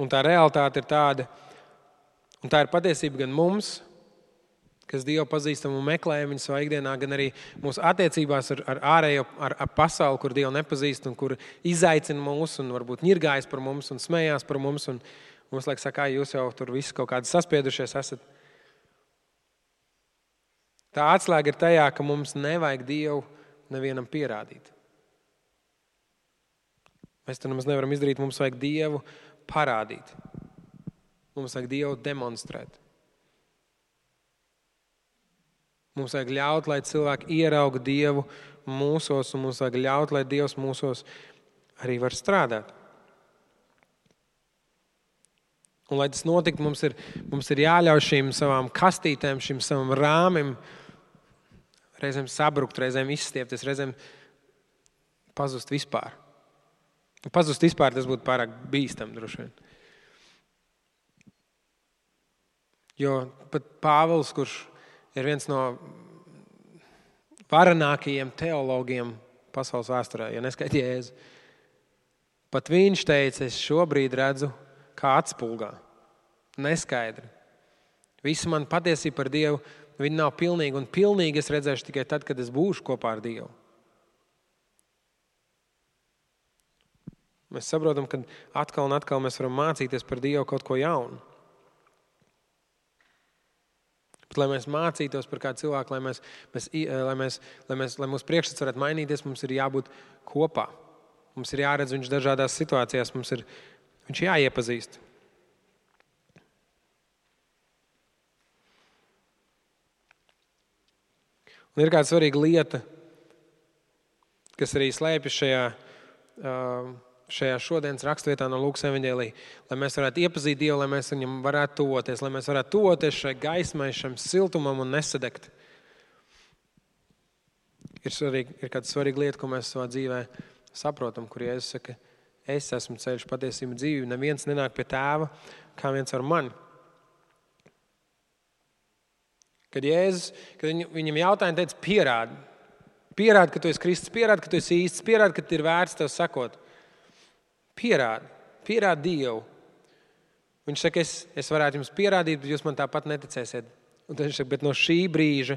Un tā realitāte ir tāda, un tā ir patiesība gan mums, kas Dievu pazīstam un meklējam viņu savā ikdienā, gan arī mūsu attiecībās ar ārējo, ar pasauli, kur Dievu nepazīst un kur izaicina mūs un varbūt ņirgājas par mums un smējās par mums. Un mums liekas, ka jūs jau tur visi kaut kādi saspiedušies esat. Tā atslēga ir tajā, ka mums nevajag Dievu nevienam pierādīt. Mēs to nemaz nevaram izdarīt, mums vajag Dievu parādīt. Mums vajag Dievu demonstrēt. Mums vajag ļaut, lai cilvēki ierauga Dievu mūsos, un mums vajag ļaut, lai Dievs mūsos arī var strādāt. Un, lai tas notiktu, mums ir jāļauj šīm savām kastītēm, šim savam rāmim reizēm sabrukt, reizēm izstiepties, reizēm pazust vispār. Pazust vispār tas būtu pārāk bīstam droši vien. Jo pat Pāvils, kurš ir viens no varenākajiem teologiem pasaules vēsturē, ja neskaita Jēzu. Pat viņš teica, es šobrīd redzu kā atspulgā. Neskaidri. Visa man patiesība par Dievu, viņa nav pilnīga, un pilnīgi es redzēšu tikai tad, kad es būšu kopā ar Dievu. Mēs saprotam, ka atkal un atkal mēs varam mācīties par Dievu kaut ko jaunu. Bet, lai mēs mācītos par kādu cilvēku, lai mūsu priekšstats varētu mainīties, mums ir jābūt kopā. Mums ir jāredz viņš dažādās situācijās, viņš jāiepazīst. Un ir kāda svarīga lieta, kas arī slēpjas šajā šodienas rakstvietā no Lūkas evaņģēlija, lai mēs varētu iepazīt Dievu, lai mēs viņam varētu tuvoties, lai mēs varētu tuvoties šai gaismai, šam siltumam un nesadegt. Ir kāda svarīga lieta, ko mēs savā dzīvē saprotam, kur Jēzus saka, es esmu ceļš, patiesība, dzīvība, neviens nenāk pie Tēva, kā viens ar mani. Kad viņam jautāja, teica, pierādi, ka tu esi Kristus, pierādi, ka tu esi īsts, pierādi, ka ir vērts tev sakot. Pierādi Dievu. Viņš saka, es varētu jums pierādīt, bet jūs man tāpat neticēsiet. Un tad viņš saka, bet no šī brīža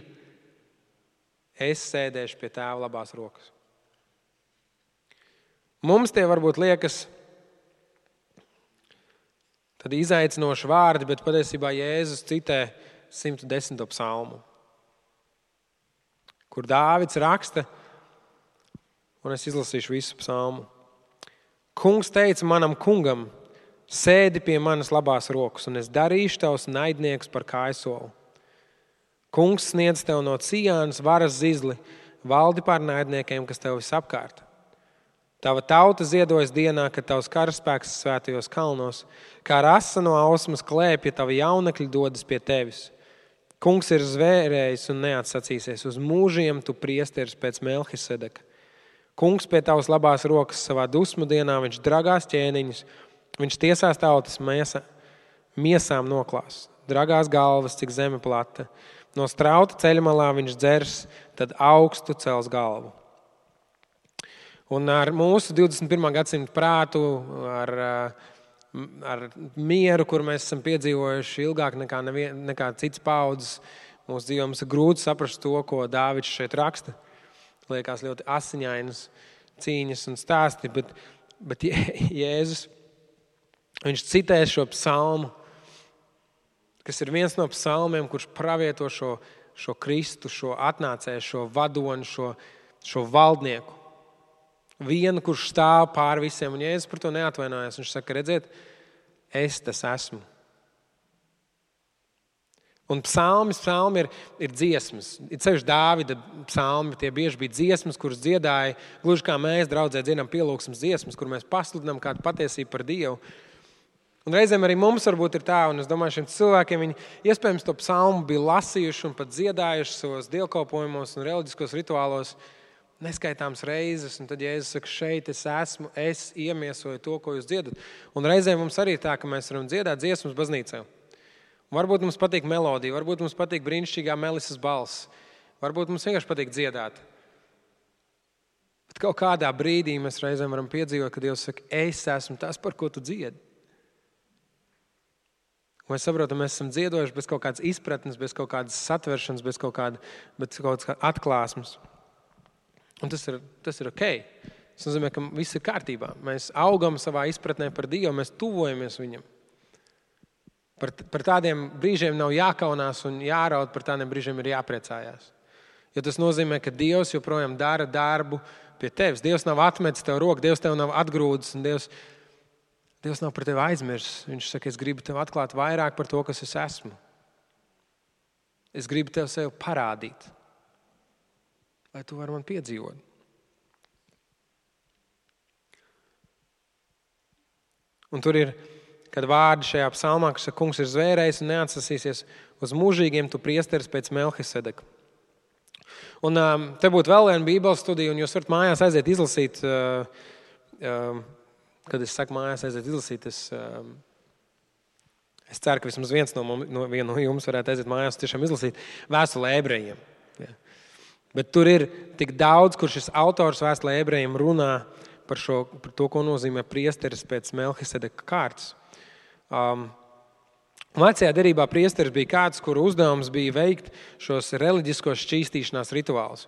es sēdēšu pie Tēva labās rokas. Mums tie varbūt liekas tad izaicinoši vārdi, bet patiesībā Jēzus citē 110. psalmu, kur Dāvids raksta, un es izlasīšu visu psalmu. Kungs teica manam kungam, sēdi pie manas labās rokas, un es darīšu tavus naidniekus par kājsolu. Kungs sniedz tev no Cijānas varas zizli, valdi pār naidniekiem, kas tev visapkārt. Tava tauta ziedojas dienā, kad tavs karaspēks svētajos kalnos, kā rasa no ausmas klēpja, tavi jaunekļi dodas pie tevis. Kungs ir zvērējis un neatsacīsies. Uz mūžiem tu priesteris pēc Melhisedeka. Kungs pie tavas labās rokas savā dusmu dienā, viņš dragās ķēniņus, viņš tiesās tautas miesām noklās. Dragās galvas, cik zeme plata. No strauta ceļmalā viņš dzers, tad augstu cels galvu. Un ar mūsu 21. gadsimta prātu, ar mieru, kur mēs esam piedzīvojuši ilgāk nekā cits paudzes, mūsu dzīvē mums ir grūti saprast to, ko Dāvids šeit raksta. Liekas ļoti asiņainas cīņas un stāsti, bet Jēzus, viņš citē šo psalmu, kas ir viens no psalmiem, kurš pravieto šo Kristu, šo atnācēju, šo vadoni, šo valdnieku. Vienu, kurš stāv pār visiem, un Jēzus par to neatvainojas. Viņš saka, redziet, es tas esmu. Un psalmi ir dziesmas. Ir ceļš Dāvida psalmi, tie bieži bija dziesmas, kuras dziedāja, gluži kā mēs draudzē dziedam pielūgsmes dziesmas, kur mēs pasludinām kādu patiesību par Dievu. Un reizēm arī mums varbūt ir tā, un es domāju, šiem cilvēkiem viņi iespējams to psalmu bija lasījuši un pat dziedājuši savos dievkalpojumos un reliģiskos rituālos neskaitāms reizes, un tad Jēzus saka, šeit es esmu, es iemiesoju to, ko jūs dziedat. Un reizēm mums arī tā, ka mēs varam dziedāt dziesmas baznīcā. Varbūt mums patīk melodija, varbūt mums patīk brīnišķīgā Melisas balss, varbūt mums vienkārši patīk dziedāt. Bet kaut kādā brīdī mēs reizēm varam piedzīvot, ka Dievs saka, es esmu tas, par ko tu dziedi. Un mēs saprotam, mēs esam dziedojuši bez kaut kādas izpratnes, bez kaut kādas satveršanas, bez kaut kādas atklāsmes. Un tas ir ok. Tas nozīmē, ka viss ir kārtībā. Mēs augam savā izpratnē par Dievu, mēs tuvojamies viņam. Par tādiem brīžiem nav jākaunās un jāraud, par tādiem brīžiem ir jāpriecājās. Jo tas nozīmē, ka Dievs joprojām dara darbu pie tevis. Dievs nav atmetis tev roku, Dievs tev nav atgrūdis un Dievs nav par tevi aizmirsis. Viņš saka, es gribu tev atklāt vairāk par to, kas es esmu. Es gribu tev sev parādīt, lai tu vari man piedzīvot. Un tur ir, kad vārdi šajā psalmā, kas saka, kungs ir zvērējis un neatsasīsies uz mūžīgiem, tu priesteris pēc Melhisedeka. Un te būtu vēl viena bībeles studija, un jūs varat mājās aiziet izlasīt, kad es saku mājās aiziet izlasīt, es ceru, ka vismaz viens no jums varētu aiziet mājās tiešām izlasīt vēstuli Ebrejiem. Ja. Bet tur ir tik daudz, kur šis autors vēstulē ebrejiem runā par to, ko nozīmē priesteris pēc Melhisedeka kārtas. Vecajā derībā priesteris bija kāds, kuru uzdevums bija veikt šos reliģiskos šķīstīšanās rituālus,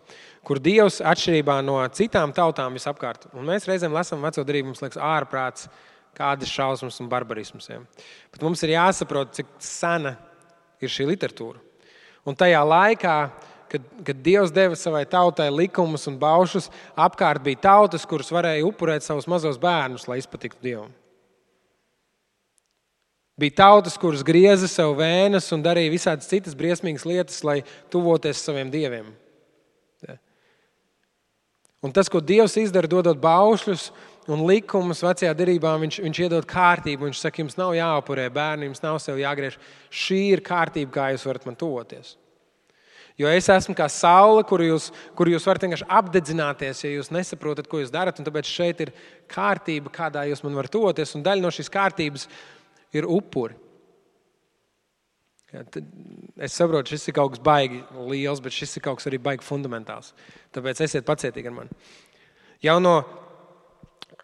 kur Dievs atšķirībā no citām tautām visapkārt. Un mēs reizēm lasām veco derību, mums liekas ārprāts, kādas šausmas un barbarismas. Ja. Bet mums ir jāsaprot, cik sena ir šī literatūra. Un tajā laikā, kad Dievs deva savai tautai likumus un baušus, apkārt bija tautas, kuras varēja upurēt savus mazos bērnus, lai izpatiktu Dievam. Bija tautas, kuras grieza sev vēnas un darīja visādas citas briesmīgas lietas, lai tuvoties saviem dieviem. Ja. Un tas, ko Dievs izdara, dodot baušļus un likumus vecajā derībā, viņš iedod kārtību. Viņš saka, jums nav jāupurē bērni, jums nav sev jāgriež. Šī ir kārtība, kā jūs varat man tuvoties. Jo es esmu kā saule, kuru jūs varat vienkārši apdedzināties, ja jūs nesaprotat, ko jūs darat. Un tāpēc šeit ir kārtība, kādā jūs man varat tuvoties. Un daļa no šīs kārtības ir upuri. Ja, es saprotu, šis ir kaut kas baigi liels, bet šis ir kaut kas arī baigi fundamentāls. Tāpēc esiet pacietīgi ar mani. Jau no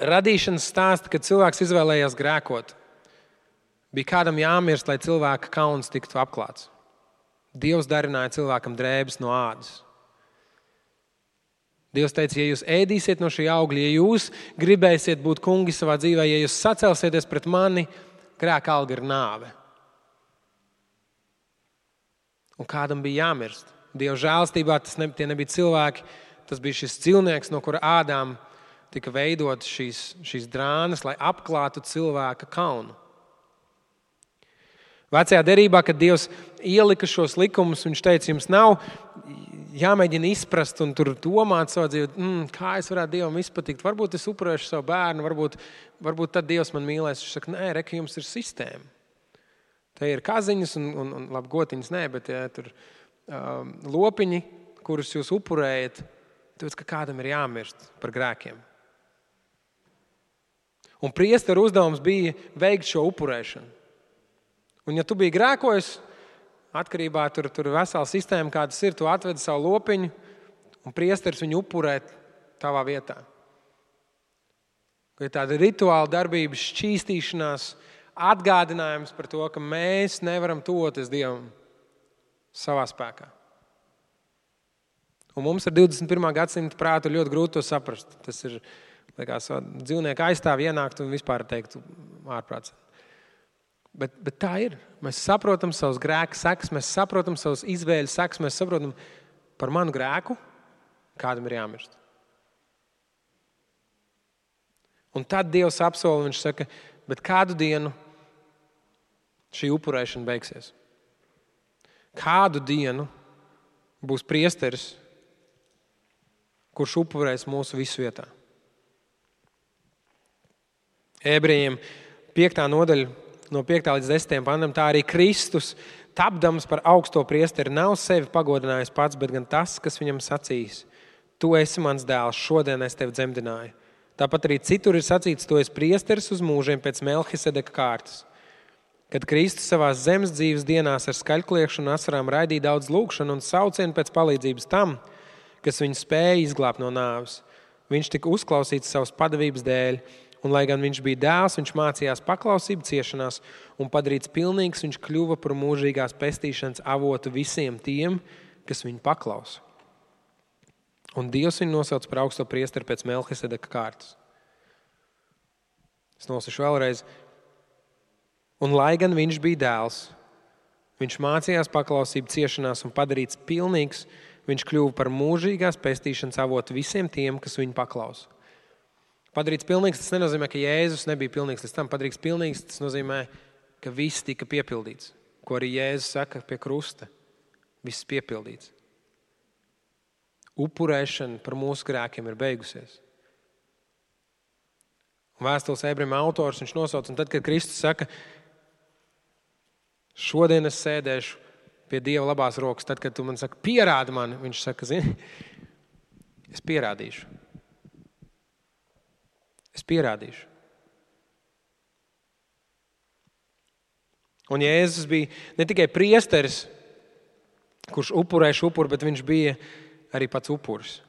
radīšanas stāsta, kad cilvēks izvēlējās grēkot, bija kādam jāmirst, lai cilvēka kauns tiktu apklāts. Dievs darināja cilvēkam drēbes no ādas. Dievs teica, ja jūs ēdīsiet no šī augļa, ja jūs gribēsiet būt kungi savā dzīvē, ja jūs sacelsieties pret mani, grēka alga ir nāve. Un kādam bija jāmirst. Dieva žēlstībā tie nebija cilvēki, tas bija šis cilvēks, no kura ādām tika veidot šīs drānas, lai apklātu cilvēka kaunu. Vecajā derībā, kad Dievs ielika šos likumus, viņš teica, jums nav jāmēģina izprast un tur domāt savā dzīvē, kā es varētu Dievam izpatikt. Varbūt es upurēšu savu bērnu, varbūt tad Dievs man mīlēs. Viņš saka, nē, reka, jums ir sistēma. Te ir kaziņas un labi, gotiņas nē, bet ja, tur lopiņi, kurus jūs upurējat, tāpēc, ka kādam ir jāmirst par grēkiem. Un priesteru uzdevums bija veikt šo upurēšanu. Un ja tu biji grēkojis, atkarībā tur vesela sistēma, kādas ir, tu atvedi savu lopiņu un priesteris viņu upurē tavā vietā. Ir tāda rituāla darbība, šķīstīšanās, atgādinājums par to, ka mēs nevaram tuvoties Dievam savā spēkā. Un mums ar 21. gadsimta prātu ļoti grūti to saprast. Tas ir, liekas, dzīvnieku aizstāv ienākt un vispār teikt ārprāts. Bet tā ir. Mēs saprotam savus grēku sekas, mēs saprotam savus izvēļu sekas, mēs saprotam par manu grēku, kādam ir jāmirst. Un tad Dievs apsola, viņš saka, bet kādu dienu šī upurēšana beigsies? Kādu dienu būs priesteris, kurš upurēs mūsu visu vietā? Ebrejiem 5. nodaļa, no 5. līdz 10. pantam, tā arī Kristus, tapdams par augsto priesteri, nav sevi pagodinājis pats, bet gan tas, kas viņam sacījis. Tu esi mans dēls, šodien es tevi dzemdināju. Tāpat arī citur ir sacīts, tu esi priesteris uz mūžiem pēc Melhisedeka kārtas. Kad Kristus savās zemes dzīves dienās ar skaļkliekšanu un asarām raidīja daudz lūgšanu un saucienu pēc palīdzības tam, kas viņu spēja izglābt no nāves. Viņš tika uzklausīts savas padavības dēļ, un, lai gan viņš bija dēls, viņš mācījās paklausību ciešanās un padarīts pilnīgs, viņš kļuva par mūžīgās pestīšanas avotu visiem tiem, kas viņu paklausa. Un Dievs viņu nosauc par augsto priesteri pēc Melhisedeka kārtas. Es nosašu vēlreiz. Un, lai gan viņš bija dēls, viņš mācījās paklausību ciešanās un padarīts pilnīgs, viņš kļuva par mūžīgās pestīšanas avotu visiem tiem, kas viņu paklausa. Padarīts pilnīgs, tas nenozīmē, ka Jēzus nebija pilnīgs līdz tam. Padarīts pilnīgs, tas nozīmē, ka viss tika piepildīts. Ko arī Jēzus saka pie krusta. Viss piepildīts. Upurēšana par mūsu grēkiem ir beigusies. Un vēstules ebrejiem autors viņš nosauc, un tad, kad Kristus saka, šodien es sēdēšu pie Dieva labās rokas, tad, kad tu man saka, pierādi mani, viņš saka, zini, es pierādīšu. Es pierādīšu. Un Jēzus bija ne tikai priesteris, kurš upurēja upuru, bet viņš bija arī pats upuris.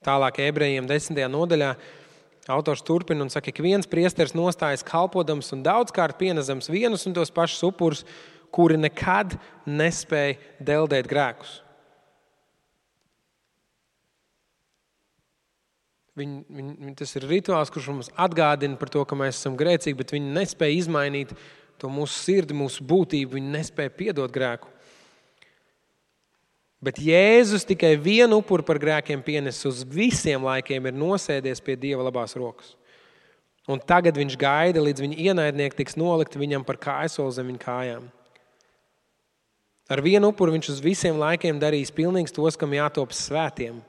Tālāk Ebrejiem 10. nodaļā autors turpina un saka, ka viens priesteris nostājas kalpodams un daudzkārt pienesams vienus un tos pašus upurus, kuri nekad nespēja deldēt grēkus. Tas ir rituāls, kurš mums atgādina par to, ka mēs esam grēcīgi, bet viņi nespēja izmainīt to mūsu sirdi, mūsu būtību, viņi nespēja piedot grēku. Bet Jēzus tikai vienu upuru par grēkiem pienes uz visiem laikiem, ir nosēdies pie Dieva labās rokas. Un tagad viņš gaida, līdz viņa ienaidnieki tiks nolikti viņam par kājsoli zem viņa kājām. Ar vienu upuru viņš uz visiem laikiem darīs pilnīgs tos, kam jātop svētiem.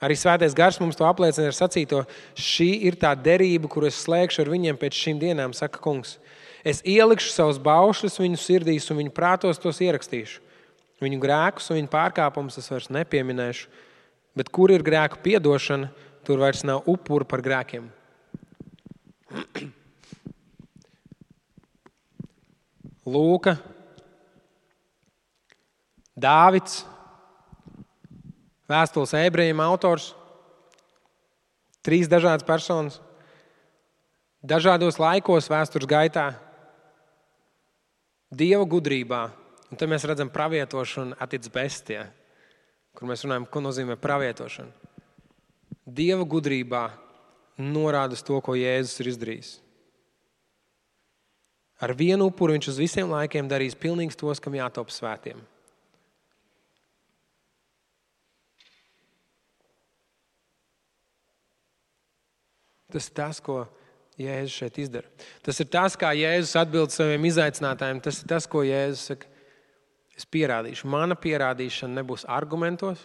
Arī Svētais Gars mums to apliecina ar sacīto, šī ir tā derība, kuru es slēgšu ar viņiem pēc šīm dienām, saka kungs. Es ielikšu savus baušļus viņu sirdīs un viņu prātos tos ierakstīšu. Viņu grēkus un viņu pārkāpumus es vairs nepieminēšu, bet kur ir grēku piedošana, tur vairs nav upuru par grēkiem. Lūka, Dāvids, vēstules Ebrejiem autors, 3 dažādas personas, dažādos laikos vēstures gaitā, Dieva gudrībā. Un te mēs redzam pravietošanu attiec bestie, kur mēs runājam, ko nozīmē pravietošana. Dieva gudrībā norāda uz to, ko Jēzus ir izdarījis. Ar vienu upuru viņš uz visiem laikiem darīs pilnīgs tos, kam jātop svētiem. Tas ir tas, ko Jēzus šeit izdara. Tas ir tas, kā Jēzus atbild saviem izaicinātājiem. Tas ir tas, ko Jēzus saka. Es pierādīšu. Mana pierādīšana nebūs argumentos.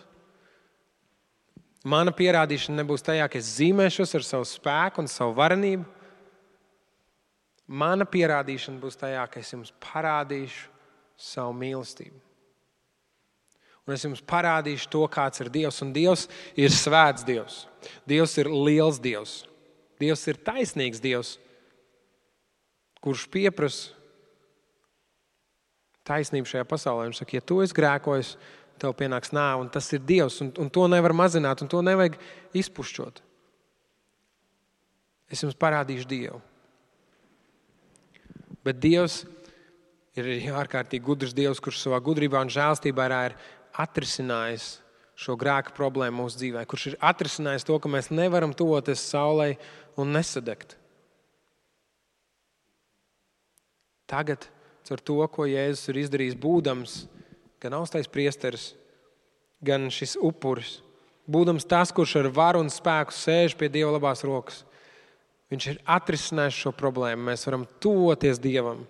Mana pierādīšana nebūs tajā, ka es zīmēšos ar savu spēku un savu varenību. Mana pierādīšana būs tajā, ka es jums parādīšu savu mīlestību. Un es jums parādīšu to, kāds ir Dievs. Un Dievs ir svēts Dievs. Dievs ir liels Dievs. Dievs ir taisnīgs Dievs, kurš pieprasa taisnību šajā pasaulē. Viņš saka, ja tu esi grēkojis, tev pienāks nāve, un tas ir Dievs, un to nevar mazināt, un to nevajag izpušķot. Es jums parādīšu Dievu. Bet Dievs ir ārkārtīgi gudrs Dievs, kurš savā gudrībā un žēlstībā ir atrisinājis šo grēku problēmu mūsu dzīvē, kurš ir atrisinājis to, ka mēs nevaram tuvoties saulei un nesadegt. Tagad ar to, ko Jēzus ir izdarījis, būdams gan augstais priesteris, gan šis upuris, būdams tas, kurš ar varu un spēku sēž pie Dieva labās rokas, viņš ir atrisinājis šo problēmu. Mēs varam tuvoties Dievam.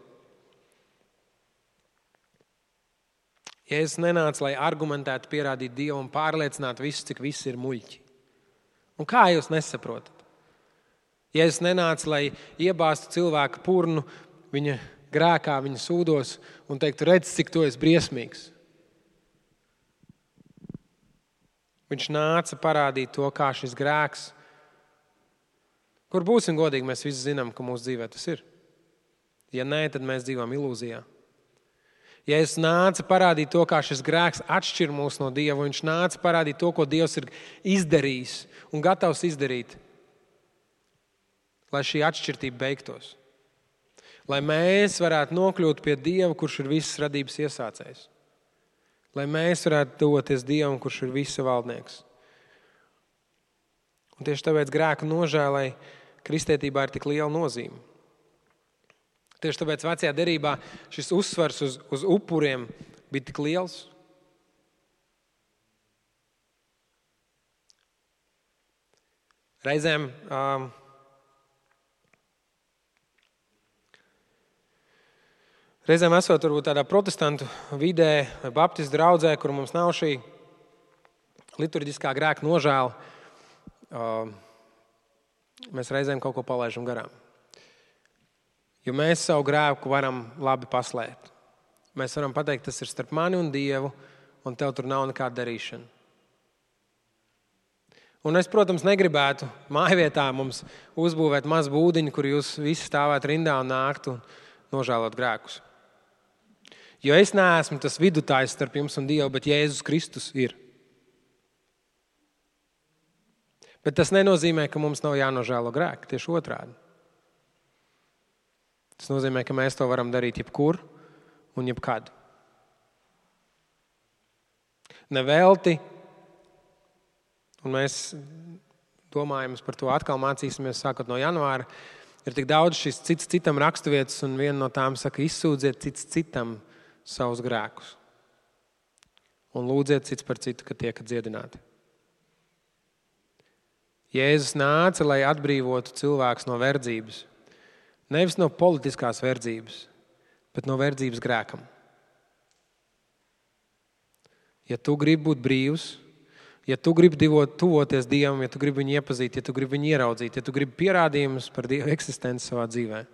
Jēzus nenāca, lai argumentētu, pierādītu Dievu un pārliecinātu visus, cik visi ir muļķi. Un kā jūs nesaprotat? Jēzus nenāca, lai iebāztu cilvēku purnu viņa grēkā, viņa sūdos un teiktu, redz, cik tu esi briesmīgs. Viņš nāca parādīt to, kā šis grēks, kur būsim godīgi, mēs visi zinām, ka mūsu dzīvē tas ir. Ja nē, tad mēs dzīvojam ilūzijā. Jēzus nāca parādīt to, kā šis grēks atšķir mūs no Dieva. Viņš nāca parādīt to, ko Dievs ir izdarījis un gatavs izdarīt, lai šī atšķirtība beigtos. Lai mēs varētu nokļūt pie Dieva, kurš ir visas radības iesācējs. Lai mēs varētu doties Dievam, kurš ir visa valdnieks. Un tieši tāpēc grēku nožēlai kristietībā ir tik liela nozīme. Tieši tāpēc vecajā derībā šis uzsvars uz upuriem bija tik liels. Reizēm esot varbūt tādā protestantu vidē vai baptistu draudzē, kur mums nav šī liturģiskā grēka nožēla, mēs reizēm kaut ko palaidām garām. Jo mēs savu grēku varam labi paslēpt. Mēs varam pateikt, tas ir starp mani un Dievu, un tev tur nav nekāda darīšana. Un es, protams, negribētu mājvietā mums uzbūvēt mazu būdiņu, kur jūs visi stāvētu rindā un nāktu un nožēlot grēkus. Jo es neesmu tas vidutājs starp jums un Dievu, bet Jēzus Kristus ir. Bet tas nenozīmē, ka mums nav jānožēlo grēki, tieši otrādi. Tas nozīmē, ka mēs to varam darīt jebkur un jebkad. Nevelti, un mēs domājam par to atkal mācīsimies sākot no janvāra, ir tik daudz šis cits citam raksturvietas, un viena no tām saka, izsūdziet cits citam savus grēkus. Un lūdziet cits par citu, ka tiekat dziedināti. Jēzus nāca, lai atbrīvotu cilvēkus no verdzības. Nevis no politiskās verdzības, bet no verdzības grēkam. Ja tu gribi būt brīvs, ja tu gribi tuvoties Dievam, ja tu gribi viņu iepazīt, ja tu gribi viņu ieraudzīt, ja tu gribi pierādījumus par Dieva eksistenci savā dzīvē,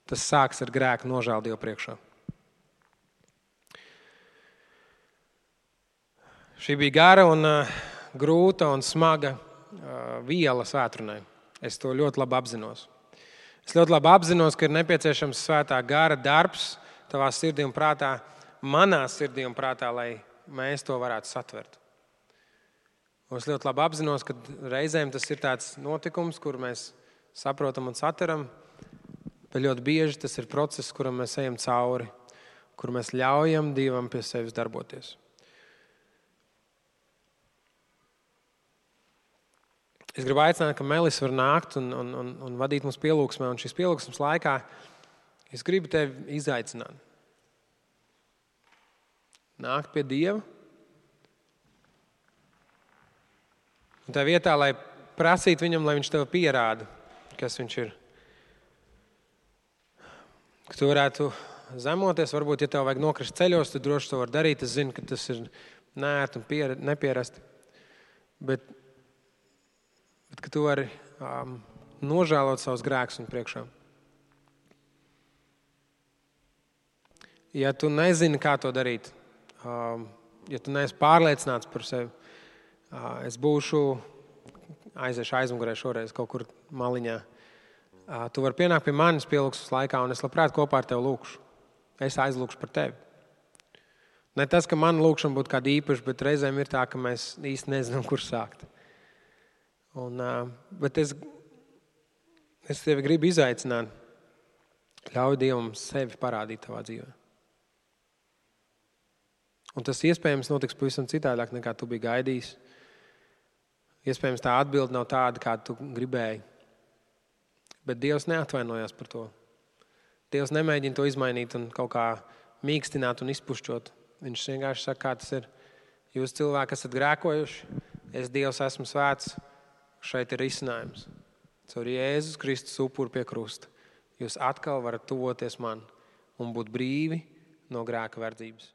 tas sāks ar grēku nožēlu Dievu priekšā. Šī bija gara un grūta un smaga viela svētrunai. Es to ļoti labi apzinos. Es ļoti labi apzinos, ka ir nepieciešams svētā gara darbs tavā sirdī un prātā, manā sirdī un prātā, lai mēs to varētu satvert. Un es ļoti labi apzinos, ka reizēm tas ir tāds notikums, kur mēs saprotam un satveram, bet ļoti bieži tas ir process, kuram mēs ejam cauri, kur mēs ļaujam Dievam pie sevis darboties. Es gribu aicināt, ka Melis var nākt un vadīt mums pielūgsmē, un šīs pielūgsmes laikā es gribu tevi izaicināt. Nākt pie Dieva. Un tā vietā, lai prasītu viņam, lai viņš tev pierāda, kas viņš ir. Ka tu varētu zemoties, varbūt, ja tev vajag nokrist ceļos, tu droši to var darīt. Es zinu, ka tas ir neērti un nepierasti. Bet ka tu vari nožēlot savus grēkus un priekšā. Ja tu nezini, kā to darīt, ja tu neesi pārliecināts par sevi, es aiziešu aizmugurē šoreiz kaut kur maliņā. Tu vari pienākt pie manis pielūgsmes laikā, un es labprāt kopā ar tevi lūkšu. Es aizlūkšu par tevi. Ne tas, ka man lūkšana būtu kāda īpaša, bet reizēm ir tā, ka mēs īsti nezinām, kur sākt. Bet es tevi gribu izaicināt. Ļauj Dievam sevi parādīt tavā dzīvē. Un tas iespējams notiks pavisam citādāk, nekā tu biji gaidījis. Iespējams tā atbilde nav tāda, kā tu gribēji. Bet Dievs neatvainojās par to. Dievs nemēģina to izmainīt un kaut kā mīkstināt un izpušķot. Viņš vienkārši saka, kā tas ir. Jūs cilvēki esat grēkojuši, es Dievs esmu svēts. Šeit ir risinājums. Caur Jēzus Kristus upuru pie krusta. Jūs atkal varat tuvoties man un būt brīvi no grēka verdzības.